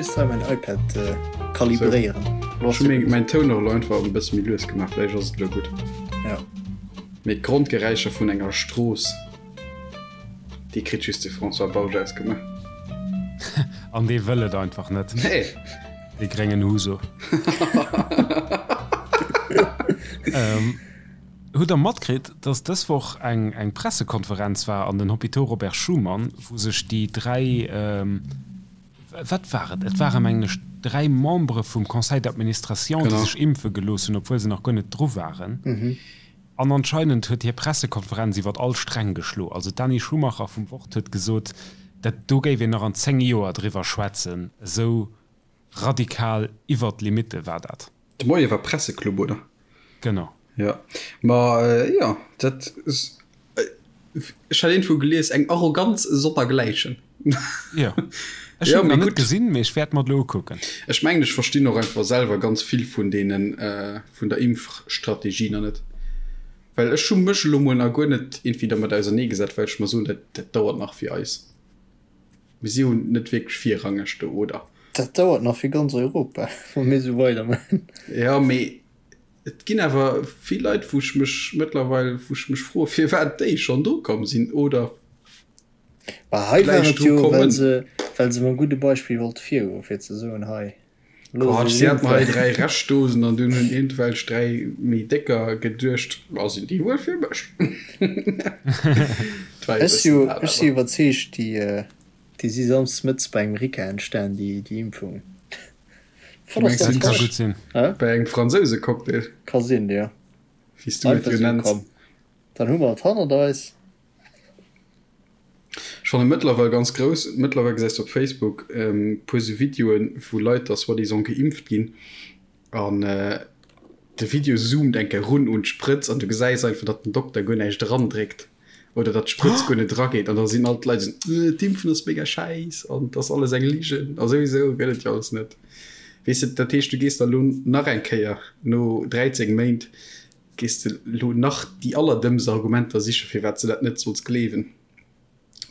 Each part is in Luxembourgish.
just hei mäin iPad kalibréieren. Ech hu mäin Toun och elo einfach e bësse méi lues gemaach, vläicht ass et elo gutt. Ja. Mee d'Grondgeräischer vun enger Strooss, déi kritt just de François Bausch ausgemaach. An dee wëll et einfach net. Nee. Dee gréngen Huso. Hutt der matkritt, dass dës Woch eng eng Pressekonferenz war an den Hôpitaux Robert Schuman, wou sech déi 3, wat war et, et ware mengen ech 3 Membere vum Conseil d'administration, déi sech impfe gelooss hunn, obwuel se nach guer net dru waren. An anscheinend huet hir Pressekonferenz iwwert all Sträng geschlo. Also d'Dani Schumacher vum Wort huet gesot, dat do géif een nach an 10 Joer driwwer schwätzen, esou radikal iwwert d'Limitte war dat. De Moie war Presseclub, oder? Genau. Jo, ma jo, dat, ech hat iergendwou gelies, eng Arroganz sonnergläichen. Jo, ech hunn et nach net gesinn, mee ech wäert mer et elo ukucken. Ech mengen, ech verstinn och einfach selwer ganz vill vun deenen, vun der Impfstrategie nach net. Well ech hu mech elo mol nach guer net iergendwéi dermat auserneegesat, well ech mer soen, dat, dat dauert nach fir eis. Mir si jo net wierklech virrangeg do, oder? Dat dauert nach fir ganz Europa, wa mir esou weidermaachen. Jo, mee et ginn awer vill Leit, wou ech mech mëttlerweil, wou ech mech froe firwat déi schonn dru komm sinn oder Bah, hei war et jo, well se, well se mam gudde Beispill wollte virgoen, fir ze soen, hei. Quatsch, si haten hei 3 Reschtdosen an dunn hunn iergendwelch 3 méi décker geduecht, ma sinn déi wuel fir mech? Ech si ech si iwwerzeegt, déi déi si samsdes mëttes bei engem Ricard entstan, déi déi Impfung. Du mengs dat ka gutt sinn. Bei engem Fransousecocktail? Ka sinn, jo. Wéi s du et jo nenns. Dann hu mer et hannert eis. Ech fannen mëttlerweil ganz grouss, mëttlerweil gesäis de op Facebook puer sou Videoen wou Leit da soi-disant geimpft ginn an de Video zoomt eng Kéier run un d'Sprëtz an du gesäis einfach datt den Dokter guer näischt eran dréckt oder datt d'Sprëtz guer net erageet an da sinn all d'Leit esou äh d'Impfen ass mega schäiss an et ass alles eng Ligen a souwisou gëtt et jo alles net. Weess de, dat heescht du gees da lo nach eng Kéier no 13 Méint Gees de lo nach déi allerdëmmst Argumenter sichen, firwat s de dat net solls gleewen?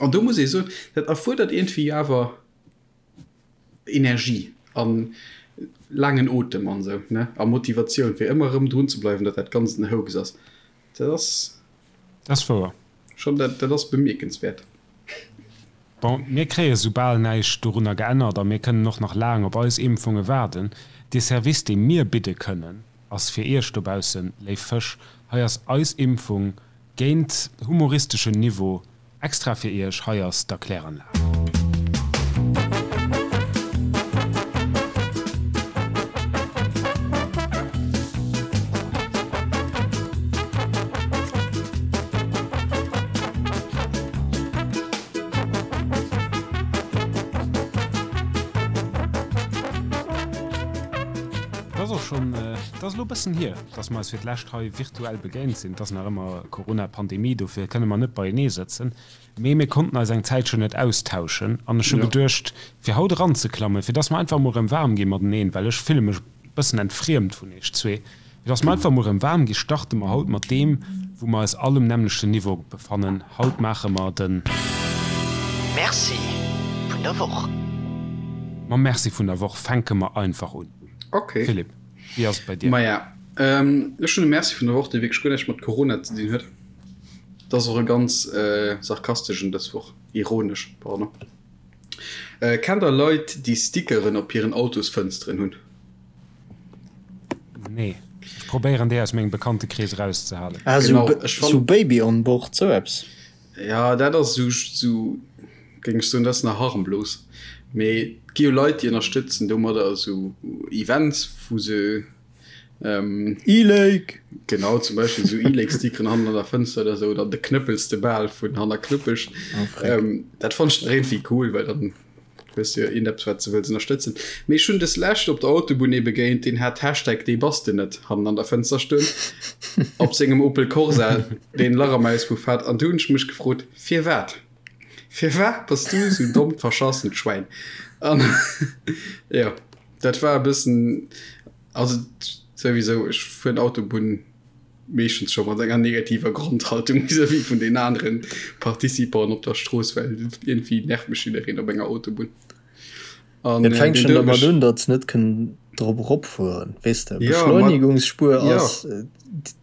An do muss ee soen, dat erfuerdert iergendwéi awer Energie a laangen Otem an esou, ne, a Motivatioun, fir ëmmer erëm drun ze bleiwen, datt dat Ganzt en Hoax ass. Dat ass. Dat ass wouer. Schonn, dat, dat ass bemierkenswäert. Bon, mir kréie soubal näischt dorunner geännert a mir kënnen och nach laang op eis Impfunge waarden. Dee Service, dee mir bidde kënnen, ass fir Iech dobaussen, léif Fësch, hei ass eis Impfung géint humoristeschen Niveau extra fir Iech, hei ass d'Erkläranlag. Et ass och schonn, et ass elo e bëssen hier, dass mer eis fir d'lescht hei virtuell begéint sinn. Et ass nach ëmmer Corona-Pandemie, dofir kënne mer net beienee sëtzen. Mee mir konnten eis eng Zäitchen net austauschen an ech hu geduecht, fir haut eranzeklammen, fir dass mer einfach emol erëm waarm gi mateneen, well ech fille mech e bëssen entfriemt vun iech zwee, fir dass mer einfach emol erëm waarm gi, starte mer haut mat deem, wou mer eis all um nämmlechten Niveau befannen. Haut maache mer de. Merci vun der Woch. Mam Merci vun der Woch fänke mer einfach un. Ok. Philippe, wéi ass et bei dir? Maja, ech hunn e Merci vun der Woch, dee wierklech guer näischt mat Corona ze dinn huet. Dat ass och e ganz sarkasteschen dës Woch, ironesch, pardon. Kennt der Leit, déi Stickeren op hiren Autosfënsteren hunn? Nee, ech probéieren déi aus mengem Bekanntekrees erauszehalen. Ah, Genau, ech sou fann. Baby on board, sou eppes? Ja, dat ass sou, sou géing ech soen, dat ass nach harmlos. Mee et gi jo Leit, déi ënnerstëtzen domadder esou Events, wou se E-Lake! Genau, zum Beispill esou E-Lake-Stickeren hannen an der Fënster oder esou, oder de Knëppels de Bal vun hanner Knuppesch. Oh, freck. Dat fannt ech nach iergendwéi cool, well dann hues du jo iergendeppes, wat s de wëlls ënnerstëtzen. Mee ech hunn des Lescht op der Autobunn ee begéint, deen hat Hashtag Dee bass de net hannen an der Fënster stoen, op sengem Opel Corsa, deen e Lach am Auspuff hat. An du hunn ech mech gefrot, Firwat? Firwat bass du esou dommt verschassent Schwäin? An jo, dat war e bëssen. Also souwisou, ech fueren Autobunn meeschtens scho mat enger negativer Grondhaltung vis-à-vis vun den aneren Participanten op der Strooss, well iergendwéi nervt mech jiddereen op enger Autobunn. An Et fänkt schonn domat un, datt se net kënnen drop eropfueren, weess de. Beschleunigungsspuer ass,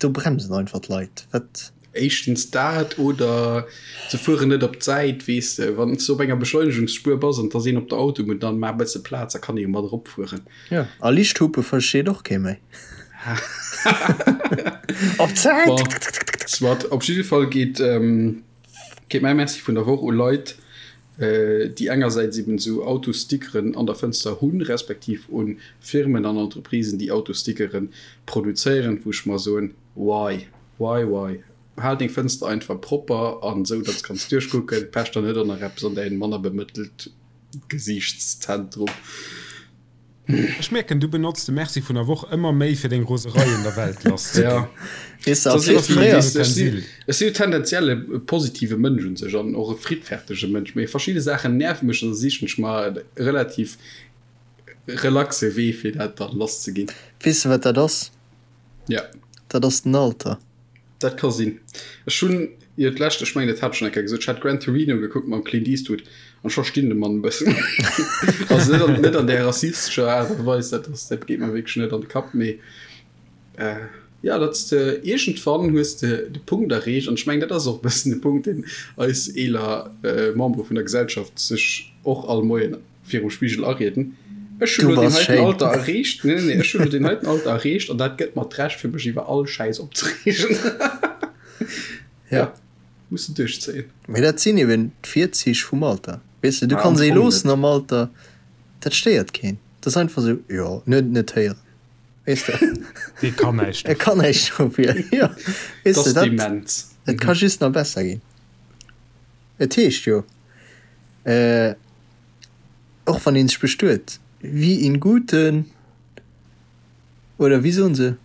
do bremsen einfach d'Leit. Wat? Éischtens dat, oder se fueren net op d'Säit, weess de. Wann s de op enger Beschleunigungsspuer bass an et ass een op der Autobunn, dann maach e bësse Plaz, da kann ee jo mat eropfueren. Jo, a Lichthupe versteet och kee méi. Op d'Säit! Bon, soit. Op jidde Fall geet, geet mäi Merci vun der Woch u Leit, déi engersäits eben esou Autostickeren an der Fënster hunn, respektiv u Firmen an Entreprisen, déi Autostickere produzéieren, wou ech mer soen, Why? Why, why? Hal deng Fënster einfach propper an esou, datt s kanns duerchkucken. Pech der net och nach eppes an däin manner bemëttelt Gesiichtszentrum. Ech mierken, du benotz de Merci vun der Woch ëmmer méi fir deng Roserei un der Welt lass ze ginn. Weess de, als fréier. Ech si jo tendenziell e positive Mënsch un sech an och e friddfertege Mënsch, mee verschidde Saachen nerve mech an da sichen ech mer e relativ relaxe Wee fir dat dann lass ze ginn. Weess de wat dat ass? Ja. Dat ass den Alter. Dat ka sinn. Ech hunn jo d'lescht, ech mengen dat hat ech schonn eng Kéier gesot, ech hat Gran Torino gekuckt mam Clint Eastwood an ech verstinn de Mann e bëssen. Also net an, net an där rassistescher Aart a Weis, dat ass, dat geet mer wierklech net an de Kapp, mee jo, datt s de iergendwann hues de de Punkt erreecht an ech mengen dat ass och e bëssen de Punkt, deen eis eeler Membere vun der Gesellschaft sech och all Moien virum Spigel arieden. Ech hunn elo deen heiten Alter erreecht. Nee, nee, nee, ech hunn elo deen heiten Alter erreecht an dat gëtt mer d'Recht fir mech iwwer all Schäiss opzereegen. Ja, muss de duerchzéien. Mee dat sinn eben d'Virzich vum Alter. Weess de, du kanns ee loossen am Alter, dat stéiert keen. Dat ass einfach esou, jo, en huet et net héieren. Weess de? Dee kann näischt E kann näischt dofir, jo. Weess de, dat, et ka just nach besser ginn. Et heescht jo, Och wann een sech bestuet, wie in guten, oder wéi soen se,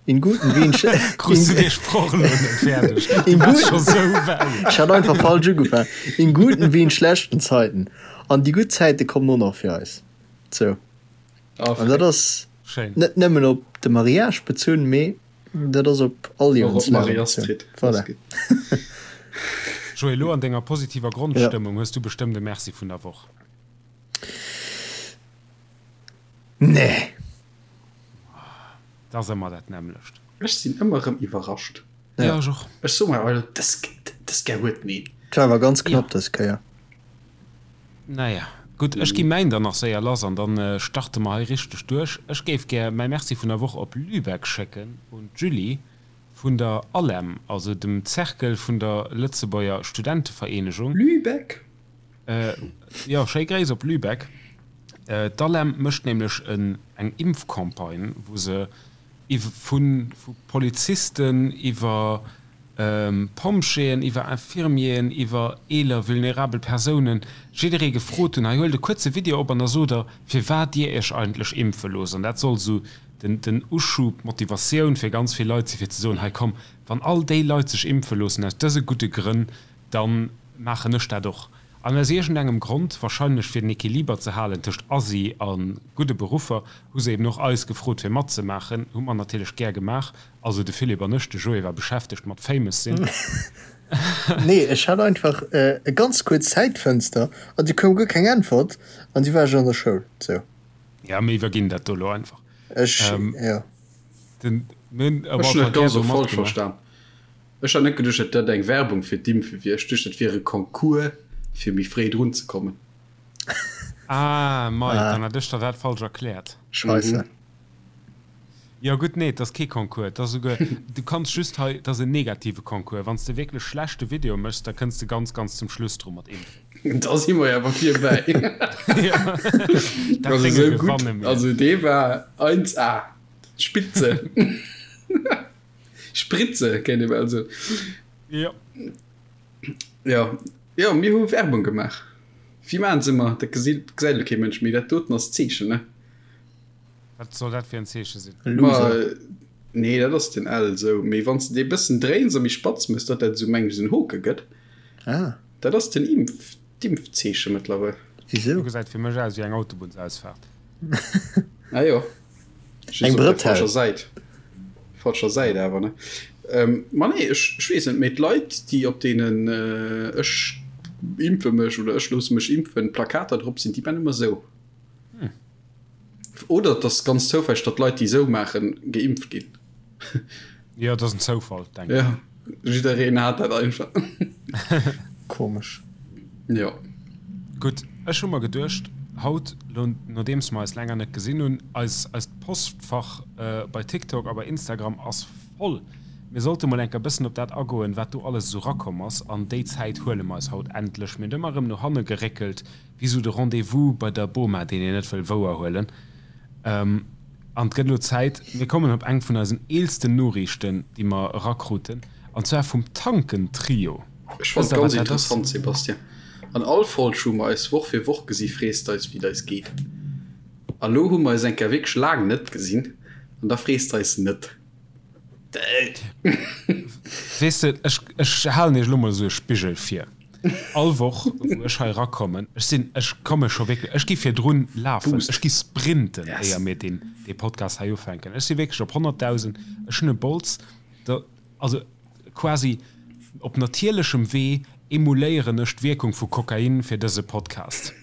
in guten wie in sch-. Krus du dee Sproch elo net fäerdeg? Du waars scho sou wäit. Ech hat einfach falsch ugefaangen. In guten wie in schlechten Zeiten. An déi gutt Zäite kommen och nach fir eis. Sou. An dat ass net nëmmen op de Mariage bezunn, mee Dat ass op all Liewenslagen bezunn. Voilà. Joé, elo an denger positiver Grondstëmmung hues du bestëmmt e Merci vun der Woch. Nee. Dat ass ëmmer dat nämmlecht. Ech sinn ëmmer erëm iwwerrascht. Jo, ech och. Ech soe mer, Alter, dës, dës Kéier huet en een. Et war awer ganz knapp dës Kéier. Naja, gutt, ech gi mäin dann nach séier lass an dann starte mer hei richteg duerch. Ech géif gär mäi Merci vun der Woch op Lübeck schécken un d'Julie vun der ALEM, also dem Cercle vun der Lëtzebuerger Studentevereenegung. Lübeck? Jo, schéi Gréiss op Lübeck. D'ALEM mécht nämlech eng Impfcampagne, wou se vu Polizisten iwwer Pompjeeën, iwwer Infirmieren, iwwer eeler vulnerabel Persounen, jidderee gefrot hunn, hei huelt e kuerze Video op an da sot der, firwat dir iech eigentlech impfe loosst. An dat soll esou den Uschub, d'Motivatioun fir ganz vill Leit si fir ze soen, hei komm, wann all déi Leit sech impfe loossen aus dëse gudde Grënn, da maachen ech dat och. An aus iergendengem Grond, wahrscheinlech fir den Equiliber ze halen tëscht Asi a gudde Beruffer, hu se eben och eis gefrot fir matzemaachen. Hu mer natierlech gär gemaach. Also de Philippe an ech, de Joé war beschäftegt mat famous sinn. Nee, ech hat einfach e ganz kuerz Zäitfënster an du koum guer keng Äntwert an du war ech an der Schoul. Sou. Ja, mir iwwerginn dat do elo einfach. Ech, jo. Den, mir hunn op alle Ech hunn Fall dat gär ganz do och falsch matgemaach. verstan. Ech hat net geduecht, datt dat eng Werbung fir d'Impfe wier. Ech duecht, dat wier e Concours, fir méi fréi drun ze kommen. Ah, mei, dann hat ech der dat falsch erkläert. Scheisse. Jo gutt, nee, et ass kee Concours, et ass esouguer, du kanns just hei, et ass en negative Concours. Wann s de wierklech schlechte Video méchs, da kënns de ganz, ganz zum Schluss dru mat Impfen. Da si mer jo awer virbäi. Dat Also Dénge esou gutt, gewanne mir. also dee war 1A, Spitze. Spritze kéint ee bal soen. Jo. Jo, jo, mir hu Werbung gemaach. Wéi maachen se ëmmer? Dat gesäit elo kee Mënsch méi. Dat doten ass d'Zeechen, ne? Wat soll dat fir en Zeeche sinn? Ma, nee, dat ass den L esou. Mee wann s de dee bëssen dréins a méi spatz mëss, datt dat esou, meng ech, esou en Hoke gëtt. Ah. Dat ass den Impf, d'Impfzeeche mëttlerweil. Wisou? Do gesäit fir mech aus wéi eng Autobunnsausfaart. Ah jo. Just Eng op der Brëtell. falscher Säit. Falscher Säit awer, ne? Ähm, ma nee, ech, ech weess net, mee d'Leit, déi op deenen äh, ech impfe mech oder ech loosse mech impfen Plakater drop sinn, déi man ëmmer esou. Oder et ass ganz zoufälleg, datt Leit, déi esou maachen, geimpft ginn. Jo, dat ass en Zoufall, denken ech. Ja, jiddereen hat dat einfach. Komesch. Jo. Gutt, ech hu mer geduecht, haut, lo nodeems mer eis länger net gesinn hunn, eis, eist Postfach bei TikTok a bei Instagram ass voll. Mir sollte mol enker bëssen op dat agoen, wat do alles esou rakomm ass. An déi Zäit huele mer eis haut endlech. Mir hunn ëmmer erëm no hanne geréckelt, wéi sou de Rendez-vous bei der Boma, deen een net wëll wouerhuelen. An et gëtt elo Zäit, mir kommen op eng vun eisen eelsten Noriichten, déi mer erakruten, an zwar vum Tanken-Trio. Ech fannen et ganz interessant, Sébastien. An all Folg, wou mer eis Woch fir Woch gesi frees de eis, wéi et eis geet. A lo hu mer eis eng Kéier wierklech laang net gesinn an da frees de eis net. Weess de, ech, ech halen iech elo mol esou e Spigel vir. All Woch, wou ech hei erakommen, ech sinn, ech komme scho wierklech, ech gi virdrun lafen, ech gi sprinten, éier mir deen, dee Podcast hei ufänken. Ech si wierklech op 100.000, ech hunn e Bols, da, also quasi op natierlechem Wee emuléieren ech d'Wierkung vu Kokain fir dëse Podcast.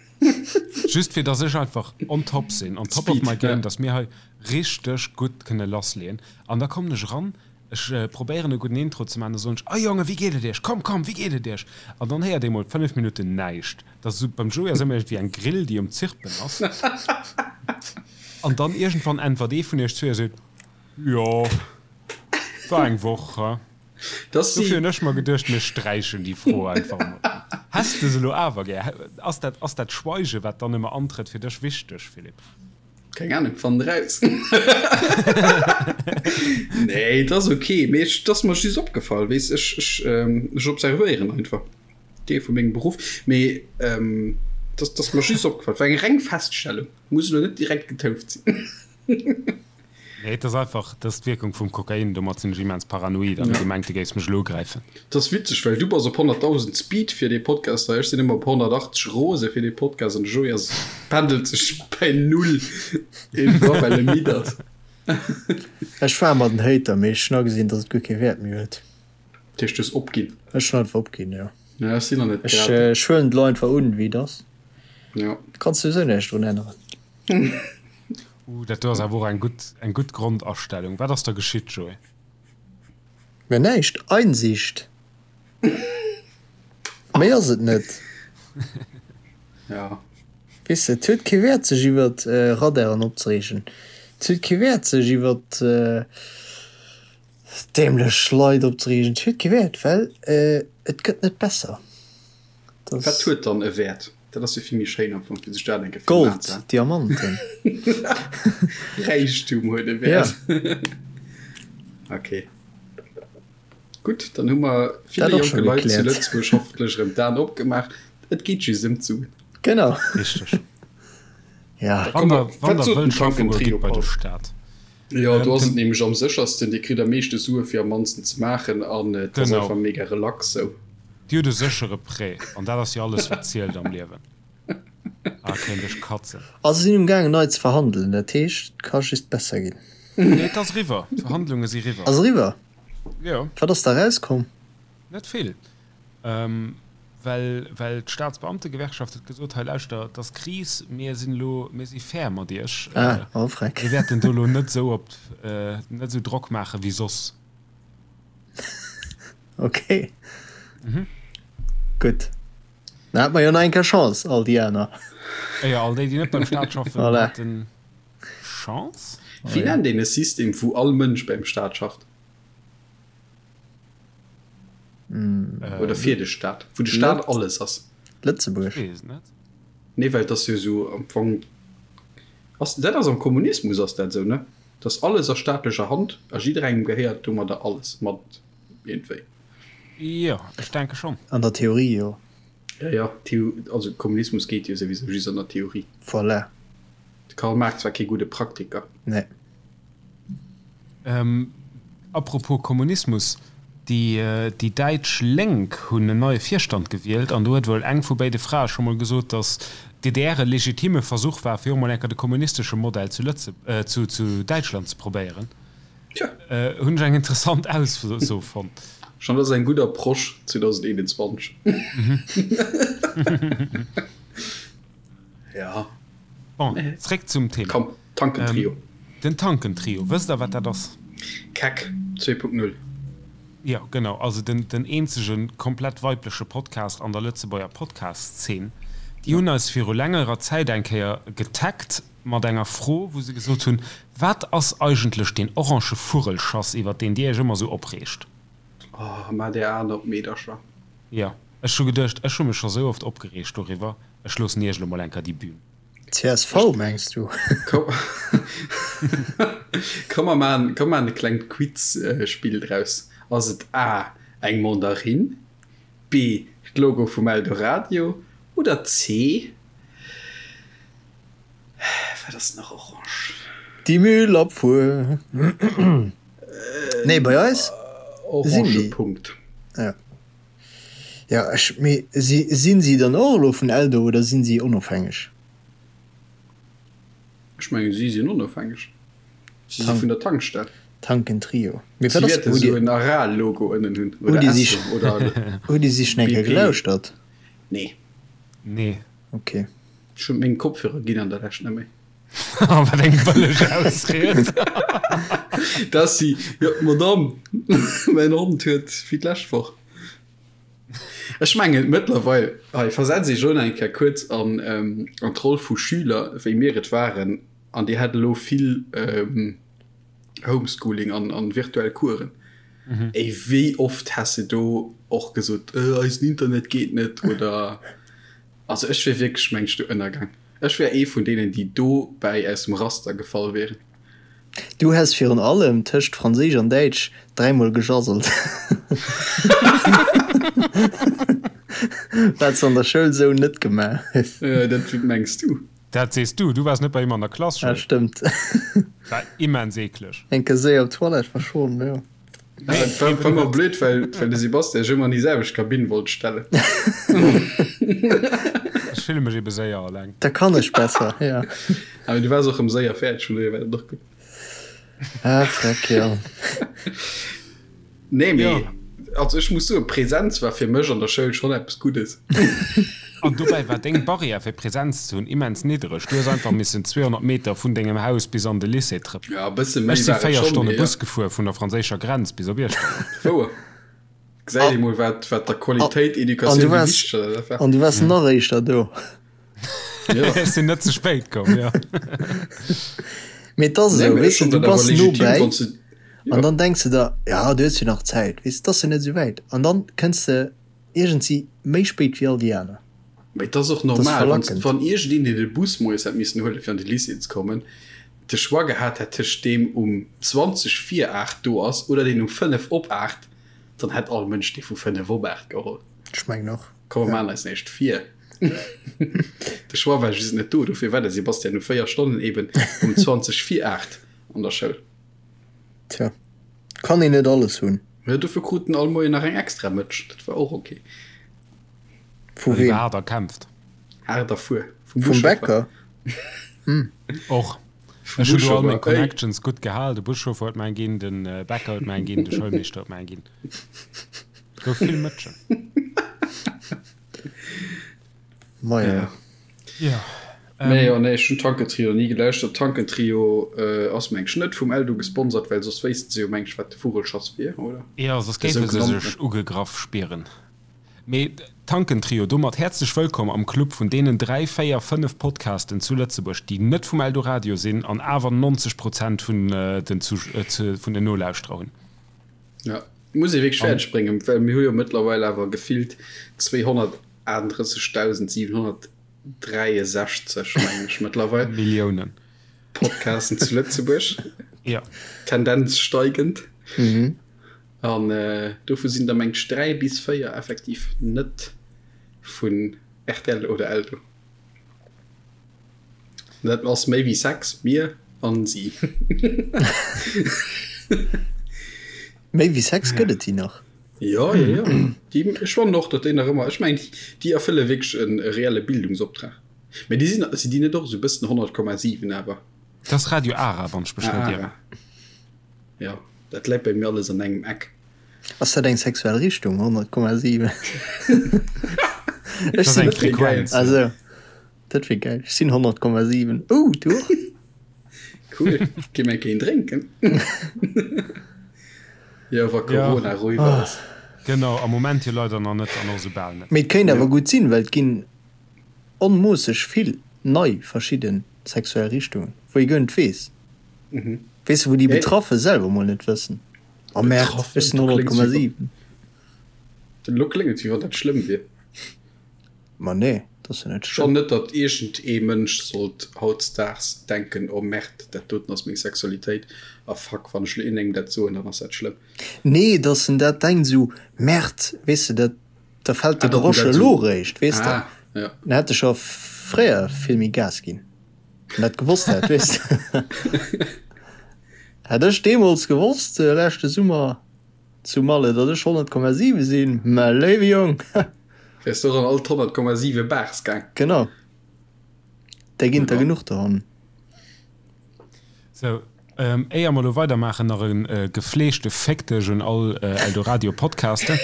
Just fir dass ech einfach on top sinn, on top of my game, dass mir hei richteg gutt kënne lassleeën. An da kommen ech eran, ech probéieren e gudden Intro ze maachen, da soen ech, Oh Jongen, wéi geet et iech? Komm, komm, wéi geet et iech? An dann héiert ee mol 5 Minutten näischt. Dat ass esou, beim Joé ass ëmmer iergendwéi eng Grill, déi um Zirpen ass. An dann iergendwann äntwert ee vun iech zwee a seet, Jo, war eng Woch, he? Dofir hunn ech mer geduecht, mir sträichen déi Fro einfach emol. Häss de se elo awer gär? Ass dat, ass dat Schweigen, wat dann ëmmer antrëtt, fir dech wichteg, Philippe? Keng Ahnung, fann et raus. Nee, et ass ok, mee ech, et ass mer just opgefall, weess, ech, ech, ech observéieren einfach, Deel vu mengem Beruff, mee et ass, et ass mer just opgefall, et war eng reng Feststellung, muss elo net direkt getouft sinn. Nee, et ass einfach, dat ass d'Wierkung vum Kokain, domat sinn ech immens paranoid an hu gemengt, du géifs mech elo ugräifen. Et ass witzeg, well du bass op 100.000 Speed fir dee Podcast hei, ech sinn ëmmer op 180 rose fir dee Podcast an de Joé ass, pendelt sech bäi null iergendwann, well e midd ass. Ech war ëmmer den Hater, mee ech hunn agesinn, dass et guer kee Wäert méi huet. Dat heescht, du hues opginn? Ech hunn einfach opginn, jo. Ja, ech sinn nach net grad. Ech huelen et elo einfach un, wéi et ass. Jo. Kanns souwisou näischt drun änneren. Uh, dat do ass awer och eng gutt, eng gutt Grondastellung. Wat ass da geschitt, Joé? Mir näischt. Einsicht. Méi ass et net. Ja. Weess de, et huet kee Wäert sech iwwert Radaren opzereegen. Et huet kee Wäert sech iwwert dämlech Leit opzereegen. Et huet kee Wäert, well et gëtt net besser. Wat huet dann e Wäert? Dat ass jo vill méi schéin am Fong, fir sech dat eng Kéier virun Aen ze Gold, Diamanten. Räichtum huet e Wäert. Ok. Gutt, dann hu mer ville jonke Leit zu Lëtzebuerg hoffentlech erëm d'Aen opgemaach. Et geet just ëm d'Suen. Genau. Richteg. Ja. Wann der, wann der wëllt schaffe goen, gitt bei de Staat. Jo, do ass et nämlech am séchersten. Dir kritt am meeschte Sue fir am mannsten ze maachen an et ass einfach mega relax sou. Dir hutt e séchere Prêt an dat ass jo alles wat zielt am Liewen. Ah, kéint ech katzen. A se sinn um gaangen nei ze verhandelen, dat heescht et ka just besser ginn. Nee, et ass eriwwer. D'Verhandlunge si riwwer. Ass eriwwer? Jo. Wat ass da erauskomm? Net vill. Well, well d'Staatsbeamtegewerkschaft huet gesot, hei lauschter, et ass Kris, mir sinn elo, mir si fair mat iech, Ah, oh freck. mir wäerten do elo net esou op, net esou Drock maache wéi soss. Ok. Gutt. Dann hate mer jo nach eng Kéier Chance, all déi aner. Jo, all déi, déi net beim Staat schaffen, Voilà. haten Chance. Wéi nennt een e System, wou all Mënsch beim Staat schafft? Oder fir de Staat, wou de Staat alles ass. Lëtzebuerg. Ech weess et net. Nee, well et ass jo esou am Fong, ass dat ass am Kommunismus ass dat esou, ne? Dass alles a staatlecher Hand a jidderengem gehéiert domadder alles mat iergendwéi. Jo, ech denke schonn. An der Theorie, jo. Ja, ja, Theo, also Kommunismus geet jo souwisou just an der Theorie. Voilà. De Karl Marx war kee gudde Praktiker. Nee. Apropos Kommunismus, déi däitsch Lénk hunn en neie Virstand gewielt an do huet wuel eng vu béide Frae scho mol gesot, datt d'DDR e legitime Versuch war, fir och mol eng Kéier de kommunistesche Modell zu zu Däitschland ze probéieren. Hunn ech eng interessant Ausso fonnt. Schonn dat ass eng gutt Approche 2021. Ja. Bon, zréck zum Thema. Komm. Tankentrio. Den Tankentrio, wësst der wat dat ass? Keck 2.0. Jo, genau, also den den eenzege komplett weibleche Podcast an der Lëtzebuerger Podcast-Szene. Déi hunn eis viru längerer Zäit eng Kéier getaggt mat enger Fro, wou se gesot hunn, Wat ass eigentlech deen orange Vurrelschass, iwwer deen Dir Iech ëmmer esou opreegt? Oh, maach där Aen op, Meedercher. Jo, ech hu geduecht, ech hu mech scho sou oft opgereegt doriwwer, ech loossen Iech elo mol eng Kéier déi Bühn. Csv mengs du? Komm mer maan, komm maan e klengt Quiz-Spill draus. Ass et A, eng Mandarinn, B, d'Logo vum Eldoradio oder C, wat ass nach orange? Déi Müllabfuhr. Nee, bei eis sinn Orange déi. Punkt. Ja. Ja, ech, mee si, sinn si dann och elo vun Eldo oder sinn si onofhängeg? Ech mengen, si sinn onofhängeg. Si si vun der Tankstell. Tankentrio. Mee Si wat ass, wäerte hutt esou en Aral-Logo ënnen hunn oder Hutt Dir Esso oder hutt Dir si schon eng Kéier BP. gelauschtert? Nee. Nee. Okay. Ech hunn meng Kopfhörer ginn an der Lescht net méi. Wat eng bëlleg Ausried. Dat si, jo, d'Madame, mäin Hond huet wéi d'lescht Woch. Ech mengen mëttlerweil, hei versetz iech elo nach eng Kéier kuerz an an d'Roll vu Schüler, wéi mir et waren, an dir hat elo vill Homeschooling an an virtuell Coursen. Ey, wéi oft häss de do och gesot, eisen Internet geet net oder, also ech wier wierklech, meng ech, do ënnergaang. Ech wär ee vun deenen, déi dobäi aus dem Raster gefall wieren. Du häss virun allem tëscht Franséisch an Däitsch dräimol gejasselt. Wat s an der Schoul sou net gemaach hues. Dat mengs du. Dat sees du, du waars net bei him an der Klass, Joé. Dat stëmmt. War immens eekleg. Eng Kéier séier op d'Toilette war schon, jo. Dat war ëmmer blöd, well well de Sebastian sech ëmmer an déi selwecht Kabinn wollt stellen. Ech fille mech ebe séier alleng. Da kann ech besser, jo. Awer du waars och rëm séier fäerdeg, vun dohier war dat och gutt. Ah, freck, jo. Nee, mee also ech muss soen, Präsenz war fir mech an der Schoul schonn eppes Guddes. An dobäi war deng Barrière fir Präsenz ze hunn immens niddereg. Du hues einfach missen 200 Meter vun dengem Haus bis an de Lycée trëppelen. Ja, e bësse méi Ech si war et 4 schonn, Stonne mee ja. Bus gefuer vun der franséischer Grenz bis op Iechternach. Wouer. Gesäit ee mol, wat, wat der Qualitéit An du Educatioun wéi waars, wichteg dat war. an du waars nach éischter do. Ja. Ech sinn net ze spéit komm, jo. Mee et ass Nee, esou, mee ech weess de, fannen du dat awer bass no legitim, bäi wann s de, an jo. dann denks de der, ja, du hues jo nach Zäit, weess de, et ass jo net esou wäit. An dann kënns de iergendsi méi spéit wéi all déi aner. Mee et ass och Dat ass normal, wann, verlackend. wann iergendeen, deen de Bus moies hätt missen huelen, fir an de Lycée ze kommen, de Choix gehat hätt tëscht deem um 20 vir 8 do ass oder deen um 5 op 8, dann hätt all Mënsch dee vu 5 op 8 geholl. Ech mengen och. Komm, mer maachen eis näischt vir. De Choix war just net do, dofir war de Sebastian no 4 Stonnen eben um 20 vir 8 an der Schoul. Tja, kann een net alles hunn. Jo, dofir krut en all Moien nach eng extra Mëtsch, dat war och ok. Vu weem? Haart erkämpft. Haart erfuer. Vum Vum Buschauffer. Bäcker? Och. Vum Ech hunn do all meng Buschauffer, ey. Connections gutt gehal. De Buschauffer huet mer eng ginn, de Bäcker huet mer eng ginn, de Schoulmeeschter huet mer eng ginn. Gouf vill Mëtschen. Maja. Ja. Ja. Nee, jo, nee, ech hunn Tankentrio ni gelauschtert. Tankentrio ass meng ech net vum Eldo gesponsert, well soss wéissten se jo meng ech wat de Vugelschass wier, oder? Jo, soss De géife se sougenannten. sech ugegraff spieren. Mee Tankentrio, domat häerzlech wëllkomm am Club vun deenen 3, 4, 5 Podcasten zu Lëtzebuerg, déi net vum Eldoradio sinn an awer 90 Prozent vun den vun den Nolauschterer hunn. Ja, muss ee wierklech fäerdeg bréngen, well mir hu jo mëttlerweil awer gefillt 238.700. 63 meng ech mëttlerweil. Milliounen. Podcasten zu Lëtzebuerg. Ja. Tendenz steigend. Mhm. An äh, dovu sinn der meng ech 3 bis 4 effektiv net vun RTL oder Eldo. Dat ass méi wéi 6, mir an si. Méi wéi 6 gëtt et déi nach? Jo, jo, jo. Déi, ech fannen och, datt déi nach ëmmer, ech mengen, déi erfëlle wierklech e reelle Bildungsoptrag. Mä déi sinn, sinn déi net och esou e bëssen 100,7 awer? Dat ass Radio Ara, wann ech mech net Ah, ieren. Ara. Jo, dat läit bei mir alles an engem Eck. Ass dat eng sexuell Richtung, 100,7? Dat ass eng Frequenz. Also, dat wier gäil. Ech sinn 100,7. Oh, du och? Cool, gi mer een drénken. Jo, wa Corona eriwwer ass. Genau, am Moment jo leider nach net an och esou bal net. Mee et kéint awer gutt sinn, well et ginn onmoosseg vill nei verschidde sexuell Richtungen, wou ee guer net weess. Weess de, wou déi Betraffe selwer mol net wëssen, Oh Merde, ech sinn 100,7. Elo kléngt et, wéi wann dat schlëmm wier. Ma nee, dat ass jo net schlëmm. Schonn net, datt iergend ee Mënsch sollt hautdesdaags denken, oh Merde, dat doten ass meng Sexualitéit a fuck, wann ech elo iergendengem dat soen, dann ass dat schlëmm. Nee, datt en dat denkt esou, Merde, weess de, dat, da fält de Grosch elo eréischt, weess de. Ah, ja. Dann hätt e scho fréier vill méi Gas ginn, wann dat gewosst hätt, weess de. Hätt ech deemools gewosst, leschte Summer zu Malle, datt ech 100,7 sinn, mä léiwe Jong! Wäers du och an all d'100,7 Bars gaang. Genau. Där ginn et der genuch dohannen. Sou, éier mer elo weidermaachen, nach e gefleegte Féck dech un all Eldoradio Podcaster.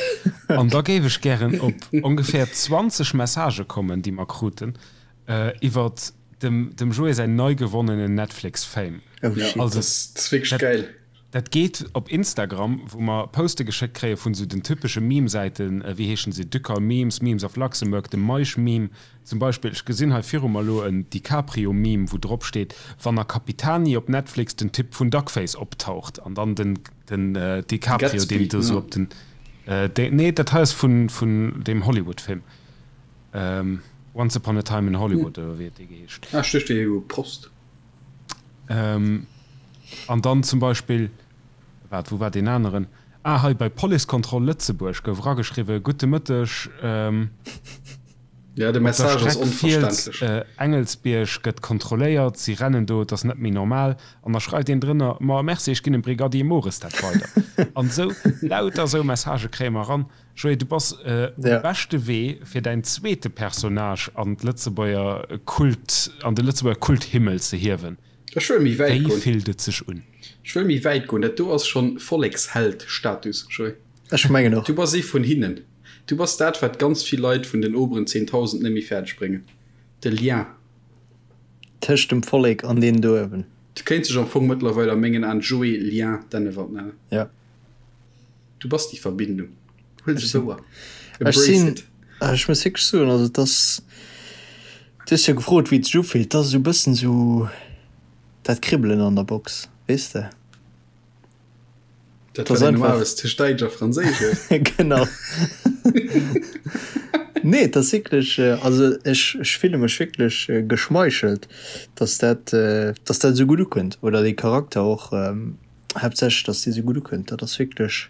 An da géif ech gären op ongeféier 20 Messagë kommen, déi mer kruten, iwwert dem dem Joé säin nei gewonnenen Netflix Fame. Oh shit. Also, dat ass wierklech geil. Dat geet op Instagram, wou mer Poste geschéckt kréie vun esou den typesche Meme-Säiten, wéi heeschen se, Ducal Memes, Memes of Luxembourg, de Meisch-Meme zum Beispill. Ech gesinn hei viru mer elo en DiCaprio-Meme, wou drop steet, wann a Capitani op Netflix den Typ vun Duckface optaucht an dann den den DiCaprio, deen do esou op den, nee, dat hei ass vun vun deem Hollywood-Film. Once Upon a Time in Hollywood oder wéi huet dee geheescht? Ah, ech duecht, dee u Prost. An dann zum Beispill, waart, wou war deen aneren? Ah, hei bei Policekontroll Lëtzebuerg gouf erageschriwwen, Gudde Mëtteg, Ja, de op der Message ass Streck Fiels, onverständlech. Engelsbierg gëtt kontrolléiert, si rennen do, et ass net méi normal. An da schreift een drënner, Ma merci, ech ginn dem Brigadier Mores dat weider. An esou, lauter esou Messagë kréie mer eran. Joé, du bass um beschte Wee fir däin zweete Personnage an d'Lëtzebuerger Kult, an de Lëtzebuerger Kulthimmel ze hiewen. Ech wëll méi wäit goen. Wéi fillt et sech un? Ech wëll méi wäit goen. Dat do ass schonn Volleksheld-Status, Joé. Ech mengen och. Du bass ee vun hinnen. Du bass dat, wat ganz vill Leit vun den oberen 10.000 net méi fäerdeg bréngen. De Lien. Tëscht dem Vollek an deenen do uewen. Du kéints dech am Fong mëttlerweil a mengen Aen Joé Lien Dennewald nennen. Jo. Du bass déi Verbindung. Huel se wouer. Ech sinn, ech muss wierklech soen, also et ass, du hues jo gefrot, wéi et sech ufillt, et ass esou e bëssen esou dat Kribbelen an der Box, weess de. Dat wat een normalerweis tëscht Däitsch a Franséisch huet. Genau. Nee, et ass wierklech, also ech, ech fille mech wierklech geschmeichelt, dass dat, dass dat esou gutt ukënnt oder dee Charakter och. Haaptsächlech dass déi sou gutt ukënnt, dat ass wierklech,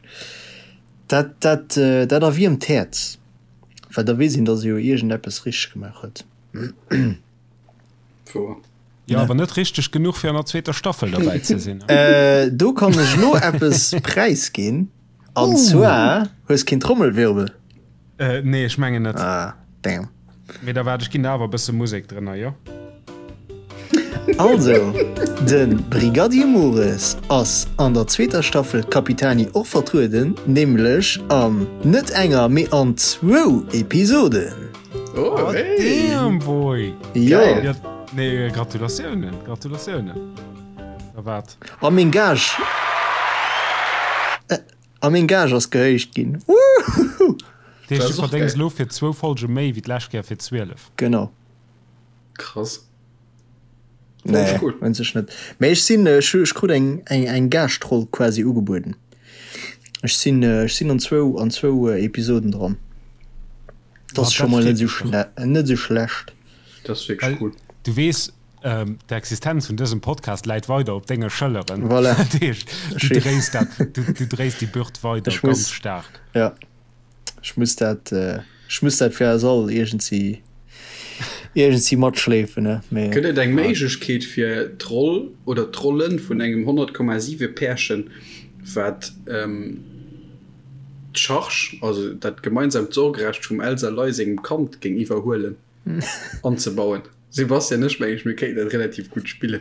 dat dat dat erwiermt d'Häerz, well da weess een, dass ee jo iergendeppes richteg gemaach huet. Wouer. Jo, awer net richteg genuch fir an der zweeter Staffel derbäi ze sinn. Do kann ech elo eppes präisginn, an zwar, hues keen Trommelwirbel? Nee, ech mengen net. Ah, damn. Mee da waart, ech ginn der awer e bësse Musek drënner, jo? Also, de Brigadier Mores ass an der zweeter Staffel Capitani och vertrueden, nämlech an net enger, mee an zwou Episoden. Oh, hey. Damn, boy! Jo. Ja, nee, Gratulatiounen, Gratulatiounen. Da waart. A meng Gage. A meng Gage ass gehéicht ginn. Woohoo! Dat heescht, du verdéngs elo fir zwou Folge méi wéi d'lescht Kéier fir 12. Genau. Krass. Nee, cool. un sech net. Mee ech sinn, ech, ech krut eng, eng, eng Gaschtroll quasi ugebueden. Ech sinn, ech sinn an zwou, an zwou Episoden dran. Dat ass scho mol net esou schle, net esou schlecht. Dat ass wierklech cool. Du weess, D'Existenz vun dësem Podcast läit weider op denge Schëlleren. Voilà. Dat heescht, du dréis dat, du, du dréis déi Bürd weider Ech ganz muss, staark. ja, ech muss dat, ech muss dat fir eis all iergendsi, iergendsi matschleefen, ne? Mee. Gëtt et eng Méiglechkeet fir d'Roll oder d'Rollen vun engem 100,7 Pärchen, wat d'Charge, also dat gemeinsamt Sorgerecht vum Elsa Ley sengem Kand géing iwwerhuelen, anzebauen? Sebastian, ech mengen, mir kéinten dat relativ gutt spillen.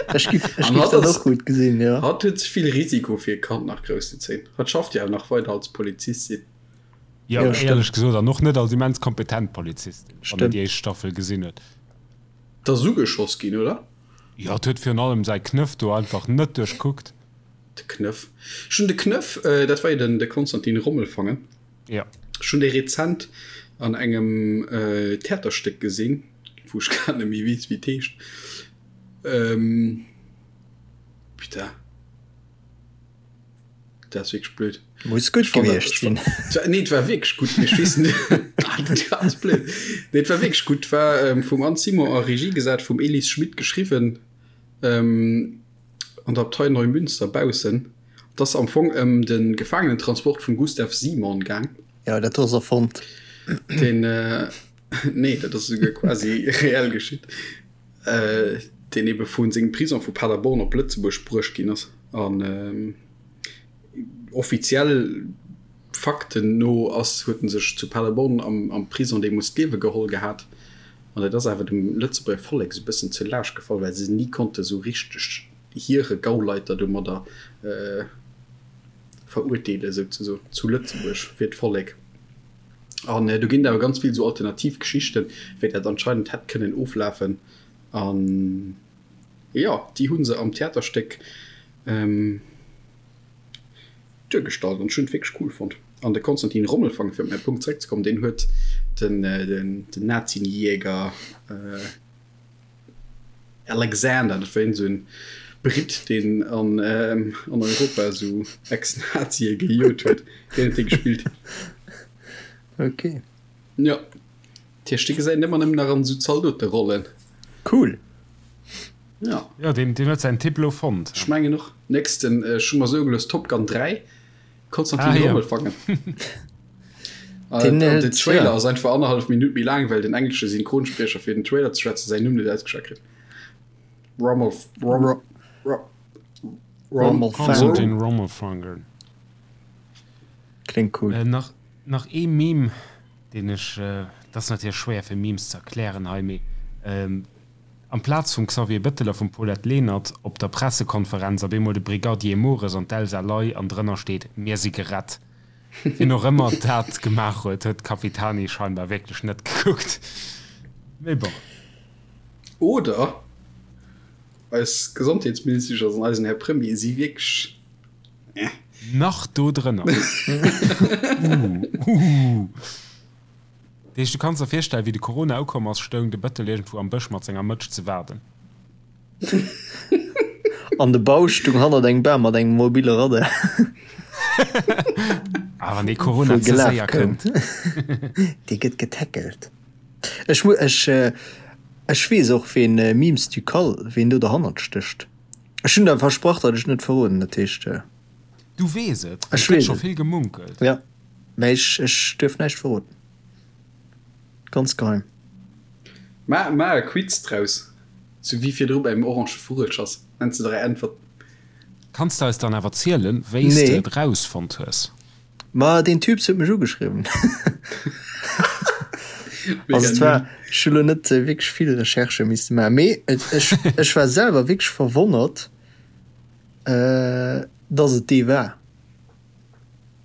Ech giff, ech giff dat och gutt gesinn, jo. Hatt huet ze vill Risiko fir e Kand nach grouss ze zéien. Hatt schafft jo awer nach weider als Polizistin. Jo, éierlech gesot, an och net als immens kompetent Polizistin, wann een déi éischt Staffel gesinn huet. D'ass ugeschoss ginn, oder? Jo, et huet virun allem säi Knëff do einfach net duerchkuckt. De Knëff. Ech hunn de Knëff, dat war jo den de Konstantin Rommelfangen. Ja. Ech hunn dee rezent an engem Theaterstéck gesinn, wou ech grad net méi weess, wéi et heescht. Putain. Dat ass wierklech blöd. Muss gutt gewiescht sinn. Nee, et war wierklech gutt, mee ech weess net. Dat ass blöd. Nee, et war wierklech gutt. Et war vum Anne Simon a Regie gesat, vum Elise Schmit geschriwwen, an der Abtei Neumünster baussen. Et ass am Fong ëm de Gefaangenentransport vum Gustav Simon gaang. Jo, dat ass erfonnt. Deen, nee, dat ass esouguer quasi reell geschitt. Deen ebe vu sengem Prison vu Paderborn op Lëtzebuerg bruecht ginn ass. An offiziell Fakten no ass, huet en sech zu Paderborn am, am Prison deemools d'Liewe geholl gehat. An dat ass awer dem Lëtzebuerger Vollek esou e bëssen zur Laascht gefall, well se ni konnte sou richteg hire Gauleiter domadder verurteelen, souzesoen, zu Lëtzebuerg fir d'Vollek. An do ginn et awer ganz vill esou alternativ Geschichten, wéi dat anscheinend hätt kënnen oflafen. An jo, déi hu se am Theaterstéck duergestallt an ech hunn et wierklech cool fonnt. An de Konstantin Rommelfangen, fir op mäi Punkt zeréckzekommen, deen huet den Nazienjäger Alexander, dat war iergend esou en Britt, deen an Europa esou Ex-Nazie gejot huet, deen huet dee gespillt. Ok. Jo. Dat heescht, dee gesäit een ëmmer nëmmen nach an esou Zaldoterollen. Cool. Jo. Jo, deen huet säin Typ elo fonnt. Ech mengen och. Nächsten, ech hu mer soe gelooss, Top Gun 3. Konstantin ah, Rommelfangen. Ja. Den, äh, den Trailer ass einfach anderthalb Minut méi laang, well den englesche Synchronsprecher fir den Trailer ze schwätzen säin Numm net ausgeschwat kritt. Rommel, Rommel, Rommel, Konstantin Rommelfangen. Klingt cool. Äh, nach, nach ee Meme, den ech, äh, dat ass natierlech schwéier fir Memes ze erklären hei, mee ähm, Amplaz vum Xavier Bettel a vum Paulette Lenert op der Pressekonferenz op eemol de Brigadier Mores an d'Elsa Ley an drënner steet Mir si gerett. Wien och ëmmer dat gemaach huet, huet d'Capitani scheinbar wierklech net gekuckt. Mee bon. Oder eis Gesondheetsministesch an eisen Här Premier si wierklech eh. Nach do drënner. Uuh, uuh. Dat heescht, du kanns der virstellen, wéi de Corona ukomm ass, stoung de Bëttel iergendwou am Bësch mat senger Mëtsch ze waarden. An de Bausch stung hannert engem Bam mat engem mobile Radar. Ah, wann dee Corona ze séier kënnt. Dee gëtt getackelt. Ech mu, ech, ech weess och, ween Memes du Cal, ween do derhannert stécht. Ech hunn der versprach, datt ech net verroden, dat heescht. Du weess et? Well et gëtt scho vill gemunkelt. Ja. Mä ech, ech duerf näischt verroden. Ganz geheim. Ma, ma e Quiz draus. Sou wéi virdru beim orange Vugelschass. Nenns de 3 Äntwerten. Kanns de eis dann awer zielen, wéi s de et rausfonnt hues? Ma deen Typ huet mech ugeschriwwen. Also et war, ech hu lo net wierklech vill Recherchë misste maachen, mee et, ech, ech war selwer wierklech verwonnert, dass et dee war.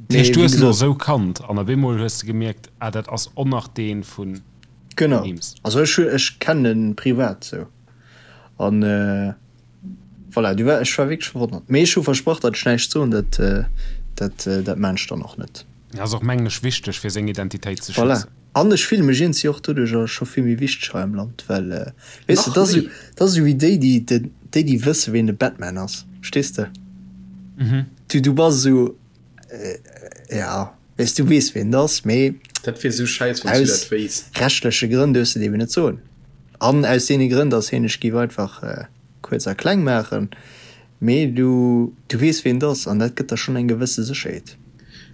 Dat heescht, du hues en och esou kannt an op eemol hues de gemierkt, ah dat ass och nach dee vu Genau, also ech ech kennen en privat sou an voilà, du war ech war wierklech verwonnert. Mee ech hu versprach, datt ech näischt soen, dat dat dat maan ech dann och net. Ass och mengen ech wichteg fir seng Identitéit ze schützen. Voilà, an ech fille mech iergendwéi och doduercher scho vill méi wichteg hei am Land, well weess de, dat ass dat ass esou wéi déi déi déi déi wësse ween de Batman ass, verstees de? Du, du bass esou, ja, weess, du weess ween et ass, mee Dat wier esou schäiss, wann s du dat wéisst. Aus rechtleche Grënn duerfs de et eben net soen. An aus deene Grënn, dass hien ech géif einfach kuerz a kleng maachen, mee du, du weess ween et ass an dat gëtt der schonn eng gewësse Sécherheet.